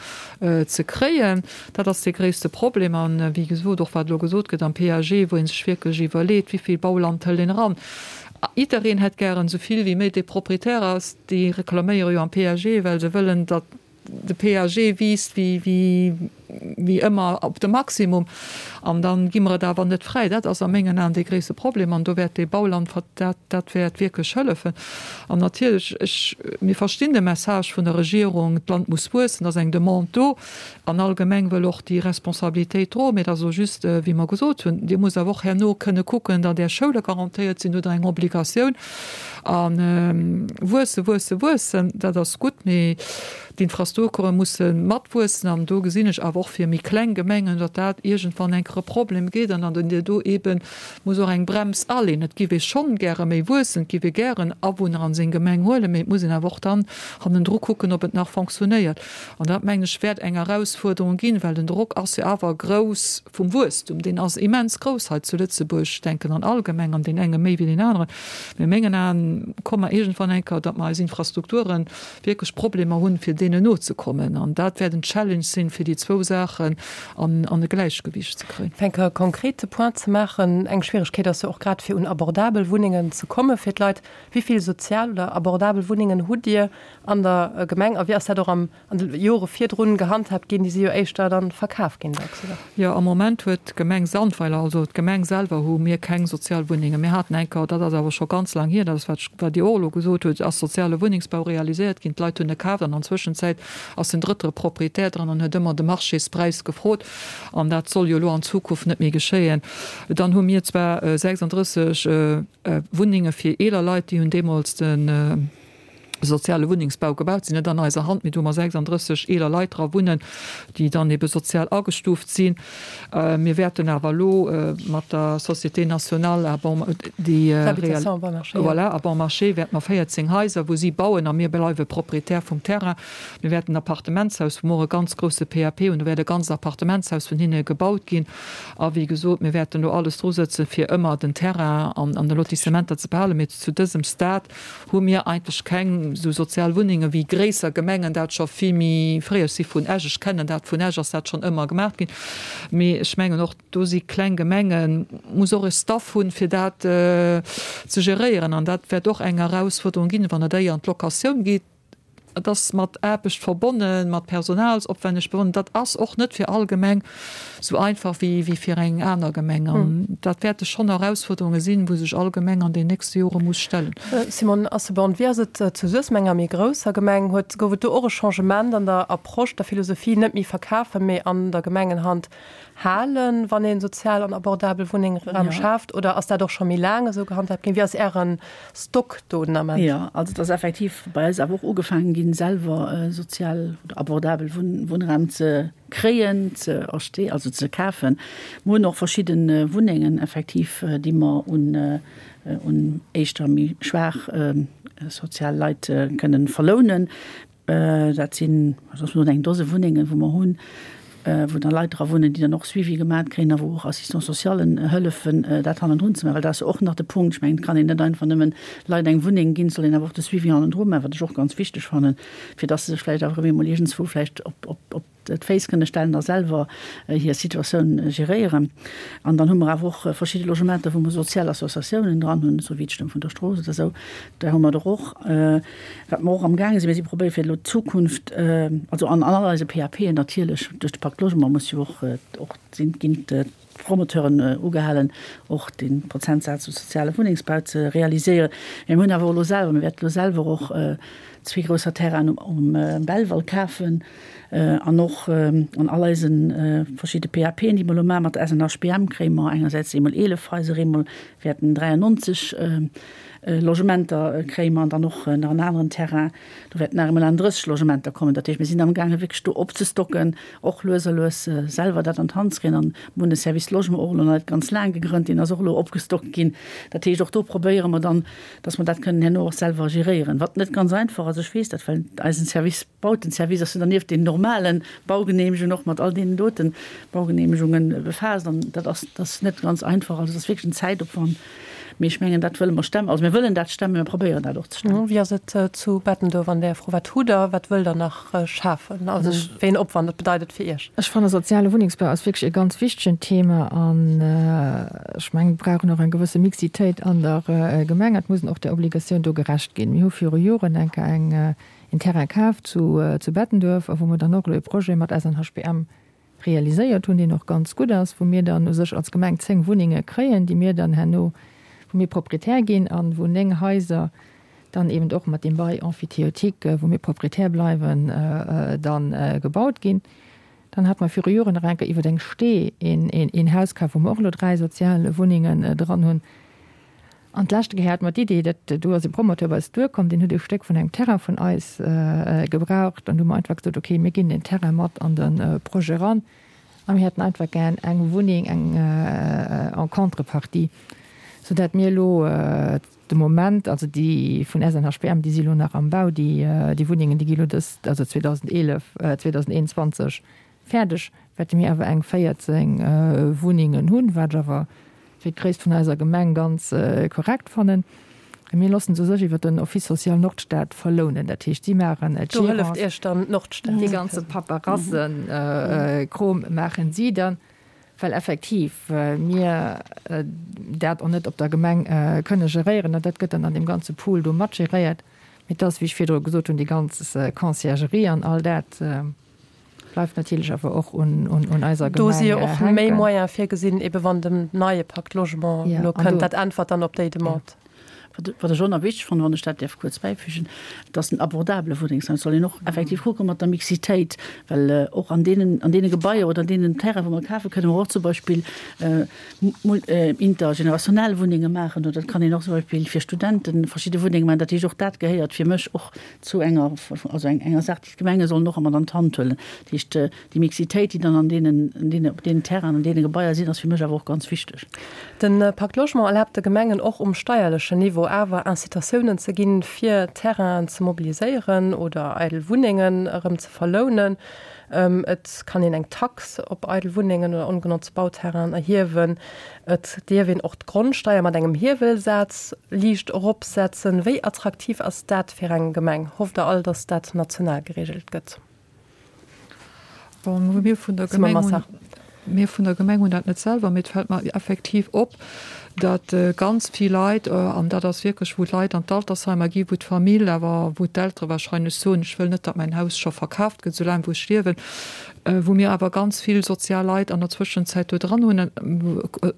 ze kréien. Dat ass dee gréisste Problem. An, wéi gesot, och wat elo gesot gëtt am PAG, wou ee sech wierklech iwwerleet, wéi vill Bauland hëlt een eran. Jiddereen hätt gären esou vill wéi méi. Dee Proprietär ass, déi reklaméiere jo am PAG, well se wëllen, datt de PAG wiisst wéi ëmmer op de Maximum. An da gi mer et awer net fräi. Dat ass a mengen Aen dee gréisste Problem. An do wäert dee Bauland, dat, dat wäert wierklech hëllefen. An natierlech, ech, mir verstinn de Message vun der Regierung, d'Land muss wuessen, et ass eng Demande do. An all Gemeng wëll och déi Responsabilitéit droen. Mee et ass elo just, wéi mer gesot hunn, Dir musst awer och herno kënne kucken, datt Är Schoule garantéiert sinn. Do hutt Der eng Obligatioun. A wuesse, wuesse, wuessen, dat ass gutt, mee d'Infrastrukture musse matwuessen. An do gesinn ech awer och fir méi kleng Gemengen, datt dat iergendwann eng Kéier e Problem gétt an datt een do eebe muss och eng Brems aleen. Et giff ee schonn gäre méi wuessen, et giff ee gären Awunner an seng Gemeng huelen, mee et muss een awer och dann hannendru kucken, ob et nach fonctionnéiert. An dat, mengen ech, wäert eng Erausfuerderung ginn, well den Drock ass jo awer grouss vum Wuesstum. Deen ass immens grouss hei zu Lëtzebuerg, ech denken an all Gemeng, an deen enge méi wéi deen aneren. Mee a mengen Aen komme mer iergendwann eng Kéier, datt mer eis Infrastrukture wierklech Problemer hunn, fir deenen nozekommen. An dat wäert en Challenge sinn, fir déi zwou Saachen an e Gläichgewiicht ze kréien. kréien. Fir eng Kéier e konkrete Point ze maachen, Eng Schwieregkeet ass jo och grad fir un abordabel Wunnengen ze komme fir d'Leit. Wéi vill sozial oder abordabel Wunnengen hutt Dir an der Gemeng a wéi ass dat och am an de Jore virdrun gehandhaabt ginn? Déi si jo éischter dann verkaf ginn dacks, oder? Jo, am Moment huet d'Gemeng Sandweiler, also d'Gemeng selwer hu mir keng sozial Wunnengen. Mir haten eng Kéier, dat ass awer scho ganz laang hier, dat ass wat ech, wat Dir och elo gesot hutt, ass soziale Wunnengsbau realiséiert ginn. D'Leit hunn e kaaft an an Zwëschenzäit ass en drëttere Proprietär dran an huet ëmmer de Marchéspräis gefrot. An dat soll jo elo an Zukunft net méi geschéien. Dann hu mir zwar 36 Wunnenge fir eeler Leit, déi hunn deemools de soziale Wunnengsbau gebaut, sinn net an eiser Hand, mee do hu mer 36 eeler Leit dra wunnen, déi dann ebe sozial agestuuft sinn. Mir wäerten awer elo mat der Société nationale à bon, déi, voilà, à bon marché wäerte mer 14 Haiser, wou si bauen a mir bleiwe Proprietär vum Terrain. Mir wäerten en Appartementshaus, wou mer och e ganz grousse PAP hunn, do wäert e ganzt Appartementshaus vun hinne gebaut ginn. A wéi gesot, mir wäerten do alles drusëtzen, fir ëmmer den Terrain an de Lotissementer ze behalen. Mee zu dësem Stade hu mir eigentlech keng esou sozial Wunnenge wéi gréisser Gemengen dat scho vill méi fréi. Ech si vun Esch, ech kennen dat vun Esch ass dat schonn ëmmer gemaach ginn. Mee ech mengen och do si kleng Gemengen, muss och e Staff hunn, fir dat ze geréieren. An dat wäert och eng Erausfuerderung ginn, wann et éier an d'Locatioun geet. Et ass mat Aarbecht verbonnen, mat Personalsopwänneg verbonnen. Dat ass och net fir all Gemeng esou einfach wéi fir eng aner Gemeng. An dat wäerte schonn Erausfuerderunge sinn, wou sech all Gemeng an den nächste Jore muss stellen. Simone Asselborn, Wéi ass et zu Suessem, enger méi grousser Gemeng? Huet, gouf et do och e Changement an der Approche, der Philosophie, net méi verkafen, mee an der Gemengenhand halen, wann ee sozial an abordabel Wunnengraum schaaft? Oder ass dat och scho méi laang esou gehandhaabt ginn? Wéi ass Äre Stock do den Ament? Jo, also et ass effektiv bei eis awer och ugefaangen ginn, selwer sozial oder abordabel Wunnraum ze kréien, ze acheter, also ze kafen. Mer hunn och verschidde Wunnengen effektiv, déi mer un un éischter méi schwaach sozial Leit kënnen verlounen. Dat sinn, wat ass elo, eng Dose Wunnengen, wou mer hunn, wou da Leit dra wunnen, déi dann och Suivi gemaat kréien a wou och Assistants-socialen hëllefen, dat hannendrun ze maachen. Well dat ass jo och nach de Punkt. Ech mengen, et kann een net einfach nëmmen Leit eng Wunneng ginn, et soll een awer och de Suivi hannendru maachen, wat ech och ganz wichteg fannen, fir dass se sech vläicht awer erëm eemol iergendswou vläicht op, op, op d'Féiss kënne stellen a selwer hir Situatioun geréieren. An dann hu mer awer och verschidde Logementer, wou mer sozial Associatiounen dran hunn, esou wéi d'Stëmm vun der Strooss oder esou. Där hu mer der och. Wat mer och amgaange sinn, mir si probéiere fir elo d'Zukunft, also an all eise PAPen natierlech, duerch de Pacte Logement muss jo och, och sinn, ginn d'Promoteuren ugehalen, och dee Prozentsaz u soziale Wunnengsbau ze realiséieren. Mä mir hunn awer och elo selwer, mir wäerten elo selwer och zwee grousser Terrainen um Belval kafen an och an all eise verschidde PAPen, déi mer elo maachen mat der SNHBM, kréie mer engersäits eemol 11 Haiser, eemol wäerten 93 Logementer kréie mer an dann och nach en aneren Terrain, do wäerten nach emol 31 Logementer kommen. Dat heescht, mir sinn amgaange wierklech do opzestocken, och lues a lues selwer dat an d'Hand ze kréien. An mir hunn de Service Logement och elo nach net ganz laang gegrënnt, deen ass och elo opgestockt ginn. Dat heescht, och do probéiere mer dann, dass mer dat kënnen herno och selwer geréieren, wat net ganz einfach ass, ech weess dat, well eisen Service Bautenservice ass jo dann nieft den normale Baugenehmegungen och mat all deenen dote Baugenehmegungen befaasst an dat ass, dat ass net ganz einfach. Also dat ass wierklech en Zäitopwand, mee ech mengen, dat wëlle mer stemmen. Also mir wëllen dat stemmen, mir probéieren dat och ze stemmen. Wéi ass et zu Bettenduerf an där Fro? Wat hutt Der, wat wëllt Der nach schafen? Also wéi en Opwand dat bedeit et fir Iech? Ech fanne soziale Wunnengsbau ass wierklech e ganz wichtegen Thema an ech mengen, mir brauchen och eng gewësse Mixitéit an der Gemeng. Et muss een och där Obligatioun do gerecht ginn. Mir hu viru Joren eng Kéier eng een Terrain kaf zu zu Bettenduerf a wou mer dann och elo e Projet mat SNHBM realiséiert hunn, deen och ganz gutt ass, wou mir dann u sech als Gemeng 10 Wunnenge kréien, déi mir dann herno, wou mir Proprietär ginn an wou 9 Haiser dann eben och mat deem Bail emphytéotique, wou mir Proprietär bleiwen, dann gebaut ginn. Dann hate mer viru Joren nach eng Kéier iwwer eng Stee een een Haus kaf, wou mer och elo 3 sozial Wunnengen dran hunn. An d'leschte Kéier hate mer d'Idee, dat do ass e Promoteur bei eis duerkomm, deen huet e Stéck vun engem Terrain vun eis gebraucht. An du hu mer einfach gesot, okay, mir ginn deen Terrain mat an de Projet eran a mir hätten einfach gär eng Wunneng, eng en contrepartie, soudatt mir elo de Moment, also déi vun SNHBM, déi si elo nach am Bau, déi Wunnengen, déi gi elo dës, also 2011, 2021 Fäerdeg wäerte mir awer eng 14 Wunnengen hunn, wat ech awer fir d'Gréisst vun eiser Gemeng ganz korrekt fannen. A mir loossen se u sech iwwer den Office social Nordstad verlounen. Dat heescht, si maachen d'Gérance. Do hëlleft Iech dann d'Nordstad. Dee ganze Paperassenkrom maachen si dann. Well effektiv mir dat och net op der Gemeng kënne geréieren. An dat gëtt dann an deem ganze Pool do mat geréiert. Mee et ass, wéi ech virdru gesot hunn, déi ganz Conciergerie an all dat bleift natierlech awer och un eiser Gemeng hänken. Do si jo och méi Moyene virgesinn, ebe wann den neie Pacte Logement elo kënnt. Dat äntwert dann op déi Demande. Wat ech och nach wichteg fannen, wann ech dat däerf kuerz bäifügen, et ass den abordabele Wunnengsraum. Et soll een och effektiv kucke mat der Mixitéit, well och an deenen, an deene Gebaier oder an deenen Terrainen, wou mer kafen, kënne mer och zum Beispill intergenerationell Wunnenge maachen oder et kann een och zum Beispill fir Studente verschidde Wunnenge maachen. Dat heescht, och dat gehéiert fir mech och zu enger, also enger Saach, déi d'Gemenge sollen och ëmmer an d'Hand huelen. Dat heescht, déi Mixitéit, déi dann an deenen, an deene, op deenen Terrainen, an deene Gebaier sinn, ass fir mech awer och ganz wichteg. De Pacte Logement erlaabt de Gemengen och um steierlechen Niveau awer Incitatiounen ze ginn, fir Terrainen ze mobiliséieren oder eidel Wunnengen erëm ze verlounen. Et kann een eng Tax op eidel Wunnengen oder ongenotzt Bauterrainen erhiewen. Et dierf een och d'Grondsteier mat engem Hiewelsaz liicht eropsetzen. Wéi attraktiv ass dat fir eng Gemeng? Hofft Der all, datt dat national gereegelt gëtt? Bon, mir vun der Gemeng hunn, mir vun der Gemeng hunn dat net selwer, mee et fält mer effektiv op, datt ganz vill Leit, an dat ass wierklech, wou d'Leit an d'Altersheimer gi wou d'Famill awer, wou d'Eltere wahrscheinlech soen, ech wëll net, datt mäin Haus scho verkaaft gëtt, soulaang wou ech liewen, wou mir awer ganz vill sozial Leit an der Zwëschenzäit do dran hunn,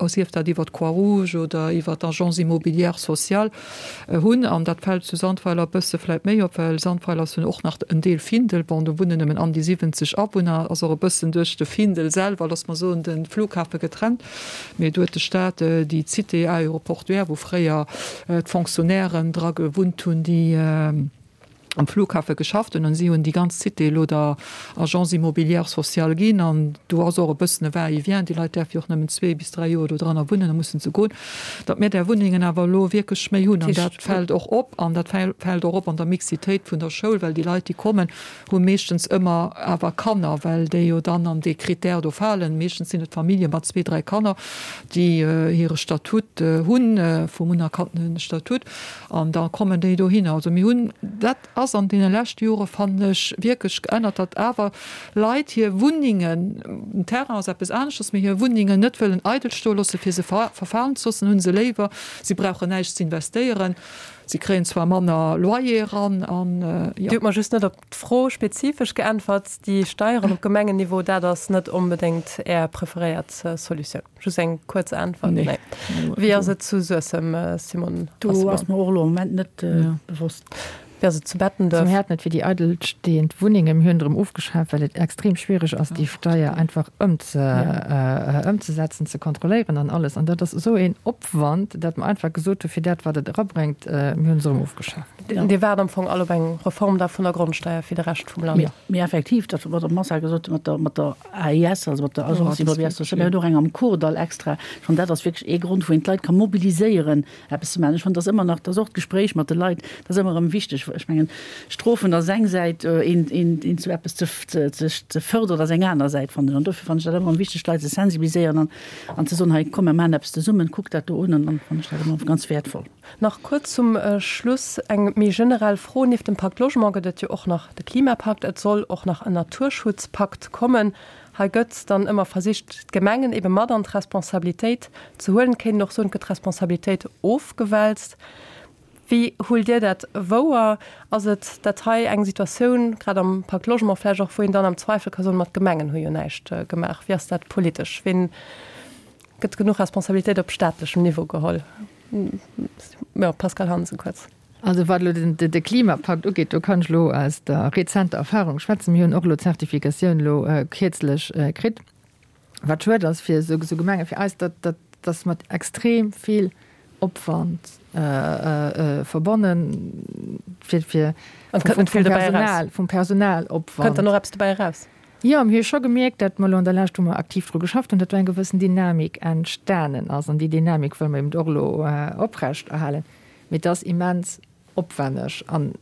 sief dat iwwer d'Croix-Rouge oder iwwer d'Agence immobilière sociale, Hunn, an dat fält zu Sandweiler e bësse vläit méi op, well Sandweiler ass jo och nach en Deel Findel, bon do wunnen nëmmen an déi 70 Awunner, ass och e bëssen duerch de Findel selwer, loosse mer soen, de Flughafe getrennt, mee do huet de Staat déi Cité aéroportuaire, wou fréier d'Fonctionnairen dra gewunnt hunn, déi. am Flughafe geschafft hunn an si hunn déi ganz Cité elo der Agence immobilière sociale ginn an do ass och e bëssen e Va-et-vient, déi Leit däerfe jo och nëmmen zwee bis dräi Joer do dranner wunnen, da mussen se goen, datt mir där Wunnengen awer elo wierklech méi hunn an dat fält och op an dat fält och op an der Mixitéit vun der Schoul, well déi Leit déi kommen, hu meeschtens ëmmer awer Kanner, well déi jo dann an dee Critère do falen. Meeschtens sinn et Famillje mat zwee, dräi Kanner, déi hire Statut hunn, vum unerkannte Statut. An da kommen déi dohinner. Also mir hunn, dat ass an deene leschte Jore fannen ech wierklech geännert, datt awer Leit hir Wunnengen, den Terrain ass eppes aneschters, mee hir Wunnengen net wëllen eidel stoe loosse fir se verfalen ze loossen, hunn se léiwer, si brauchen näischt ze investéieren, si kréien zwar manner Loyer eran an jo. Dir hutt mer just net op d'Fro spezifesch geäntwert, déi Steieren op Gemengenniveau, dat ass net onbedéngt Är preferéiert Solutioun. Just eng kuerz Äntwert. Nee. Wéi ass et zu Suessem, Simone? Do ass mer och elo am Moment net bewosst. Wéi ass et zu Bettenduerf? Mir haten et fir déi eidelstehend Wunnengen. Mir hunn et erëm ofgeschaaft, well et extrem schwiereg ass, déi Steier einfach ëmzesetzen, ze kontrolléieren an alles. An dat ass esou een Opwand, dat mer einfach gesot hu fir dat, wat et erabréngt, mir hunn se erëm ofgeschaaft. Dir waart am Fong all op eng Reform da vun der Grondsteier fir de Rescht vum Land? Mee effektiv, dat wat d'Madame Mosar gesot huet mat der AIS, also mat der Agence Immobilière Sociale, mir hunn och eng am Kordall extra. Ech fannen, dat ass wierklech ee Grond, wou een d'Leit ka mobiliséieren, eppes ze maachen. Ech fannen, dat ass ëmmer nach, dat ass och d'Gespréich mat de Leit, dat ass ëmmer erëm wichteg. Ech mengen, Strofen ass eng Säit, een, een, een zu eppes ze, ze, ze fërderen ass eng aner Säit, fannen ech. An dofir fannen ech dat ëmmer erëm wichteg, d'Leit ze sensibiliséieren an, an ze soen, hei komm, mir maachen eppes zesummen, kuck dat do un. An dann fannen ech dat ëmmer ganz wäertvoll. Nach kuerz zum Schluss eng méi generell Fro, Nieft dem Pakt Logement gëtt et jo och nach de Klimapakt, et soll och nach en Naturschutzpakt kommen. Hei gëtt dann ëmmer versicht, d'Gemengen ebe mat an d'Responsabilitéit ze huelen. Et kéint een och soen, et gëtt d'Responsabilitéit ofgewälzt. Wéi huelt Dir dat wouer? Ass et dat hei eng Situatioun, grad am Pakt Logement vläicht och, wou een dann am Zweifel ka soen, ma d'Gemengen hu jo näischt gemaach? Wéi ass dat politesch? Ween gëtt genuch Responsabilitéit op staatlechem Niveau geholl? Jo, Pascale Hansen, kuerz. Also wat elo de Klimapakt ugeet, do kann ech elo aus der rezenter Erfahrung schwätzen. Mir hunn och elo d'Zertifikatioun elo kierzlech kritt. Wat schued ass fir esou Gemenge fir eis, dat dat ass mat extrem vill Opwand verbonnen, fir fir vum Personal, vum Personalopwand. Kënnt dann och eppes dobäi eraus? Jo, mir hu scho gemierkt, datt mer elo an der Lescht, wou mer aktiv dru geschafft hunn, datt do eng gewëssen Dynamik entstanen ass. An déi Dynamik wëlle mer eben och elo oprecht erhalen. Mee et ass immens opwenneg. An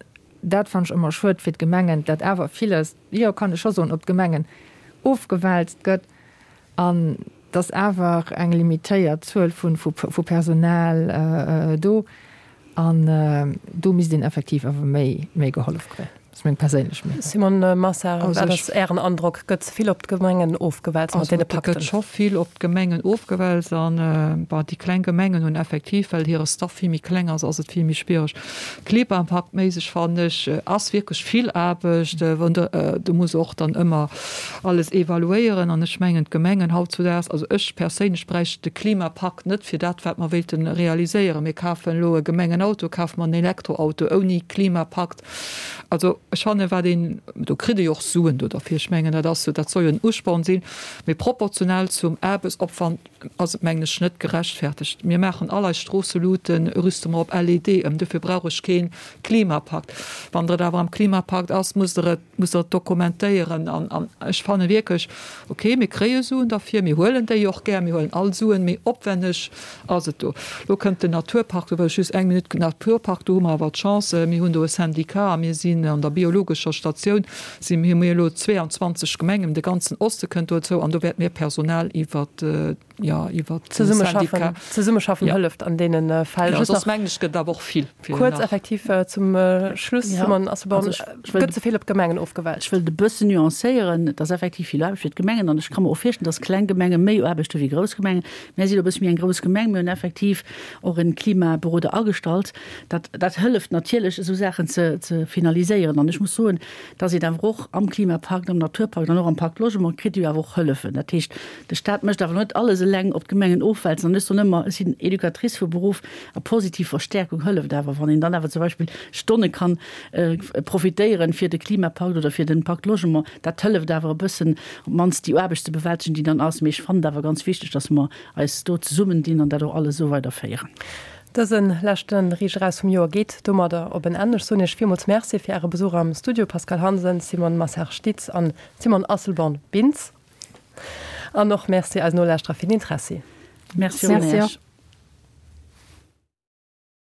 dat fannen ech ëmmer schued fir d'Gemengen, datt awer villes, jo, kann ech scho soen, op d'Gemengen ofgewälzt gëtt an datt awer eng limitéiert Zuel vu Personal do. An do misst een effektiv awer méi gehollef kréien. Dat ass meng perséinlech Meenung. Simone Massard, wat ass Ären Androck? Gëtt ze vill op d'Gemengen ofgewälzt mat deene Pakten? Also et gëtt scho vill op d'Gemengen ofgewälzt an, bon, déi kleng Gemengen hunn effektiv, well hire Staff vill méi kleng ass, ass et vill méi schwiereg. Klimapaktméisseg fannen ech, ass wierklech vill Aarbecht, wann de, du muss och dann ëmmer alles evaluéieren an ech mengen d'Gemengen hautzudaags, also ech perséinlech bräicht de Klimapakt net fir dat wat mer wéilte realiséieren. Mir kafen elo e Gemengenauto, kafe mer en Elektroauto ouni Klimapakt. Also ech fannen, wat een, do kritt ee jo och Suen do derfir, ech mengen dat ass jo, dat soll jo en Usporn sinn, mee proportional zum Aarbechtsopwand ass et mengen ech net gerechtfertegt. Mir maachen all eis Stroosseluten, rüste mer op LED ëm, dofir brauch ech kee Klimapakt. Wann der et awer am Klimapakt ass, musst Der et, musst Der et dokumentéieren. An, an ech fanne wierklech, okay, mir kréie Suen derfir, mir huelen déi och gär, mir huelen all Suen, mee opwenneg Ass et do. Lo kënnt den Naturpark, do wëll ech just eng Minutt, Naturpark, do hu mer awer d'Chance, mir hunn do e Syndicat a mir sinn an der biologescher Statioun si mir, hu mir elo 22 Gemengen, de ganzen Oste kënnt dozou an do wäerte mir Personal iwwer, jo, iwwer de Syndicat. Zesummeschaffen hëlleft an deene Fäll. Jo, soss mengen ech gëtt et awer och vill. Kuerz effektiv zum Schluss, Simone Asselborn, gëtt ze vill op d'Gemengen ofgewälzt? Ech wëll et e bëssen nuancéieren. Et ass effektiv vill Aarbecht fir d'Gemengen an ech ka mer och virstellen, dass kleng Gemenge méi Aarbecht hu wéi grouss Gemengen. Mär sinn e bësse méi eng grouss Gemeng. Mir hunn effektiv och e Klimaberoder agestallt. Dat, dat hëlleft natierlech, esou Saachen ze, ze finaliséieren. An ech muss soen, dass een awer och am Klimapakt, am Naturpakt an och am Pakt Logement kritt ee jo awer och Hëllefen. Dat heescht, de Stat mécht awer net alles eleng op d'Gemengen ofwälzen. An ech soen ëmmer, ech sinn Educatrice vu Beruff, a positiv Verstärkung hëlleft awer, wann een dann awer zum Beispill Stonne kann profitéieren fir de Klimapakt oder fir den Pakt Logement. Dat hëlleft awer e bëssen, op d'mannst déi Aarbecht ze bewältegen, déi dann ass. Mee ech fannen et awer ganz wichteg, dass mer eis do zesummendinn an dat och alles esou weiderféieren. Dëse leschte Riicht eraus vum Joer geet domadder op en Enn. Ech soen Iech villmools Merci fir Äre Besuch am Studio, Pascale Hansen, Simone Massard-Stitz an Simone Asselborn-Bintz. An och Merci eisen Nolauschterer fir den Interessi. Merci och.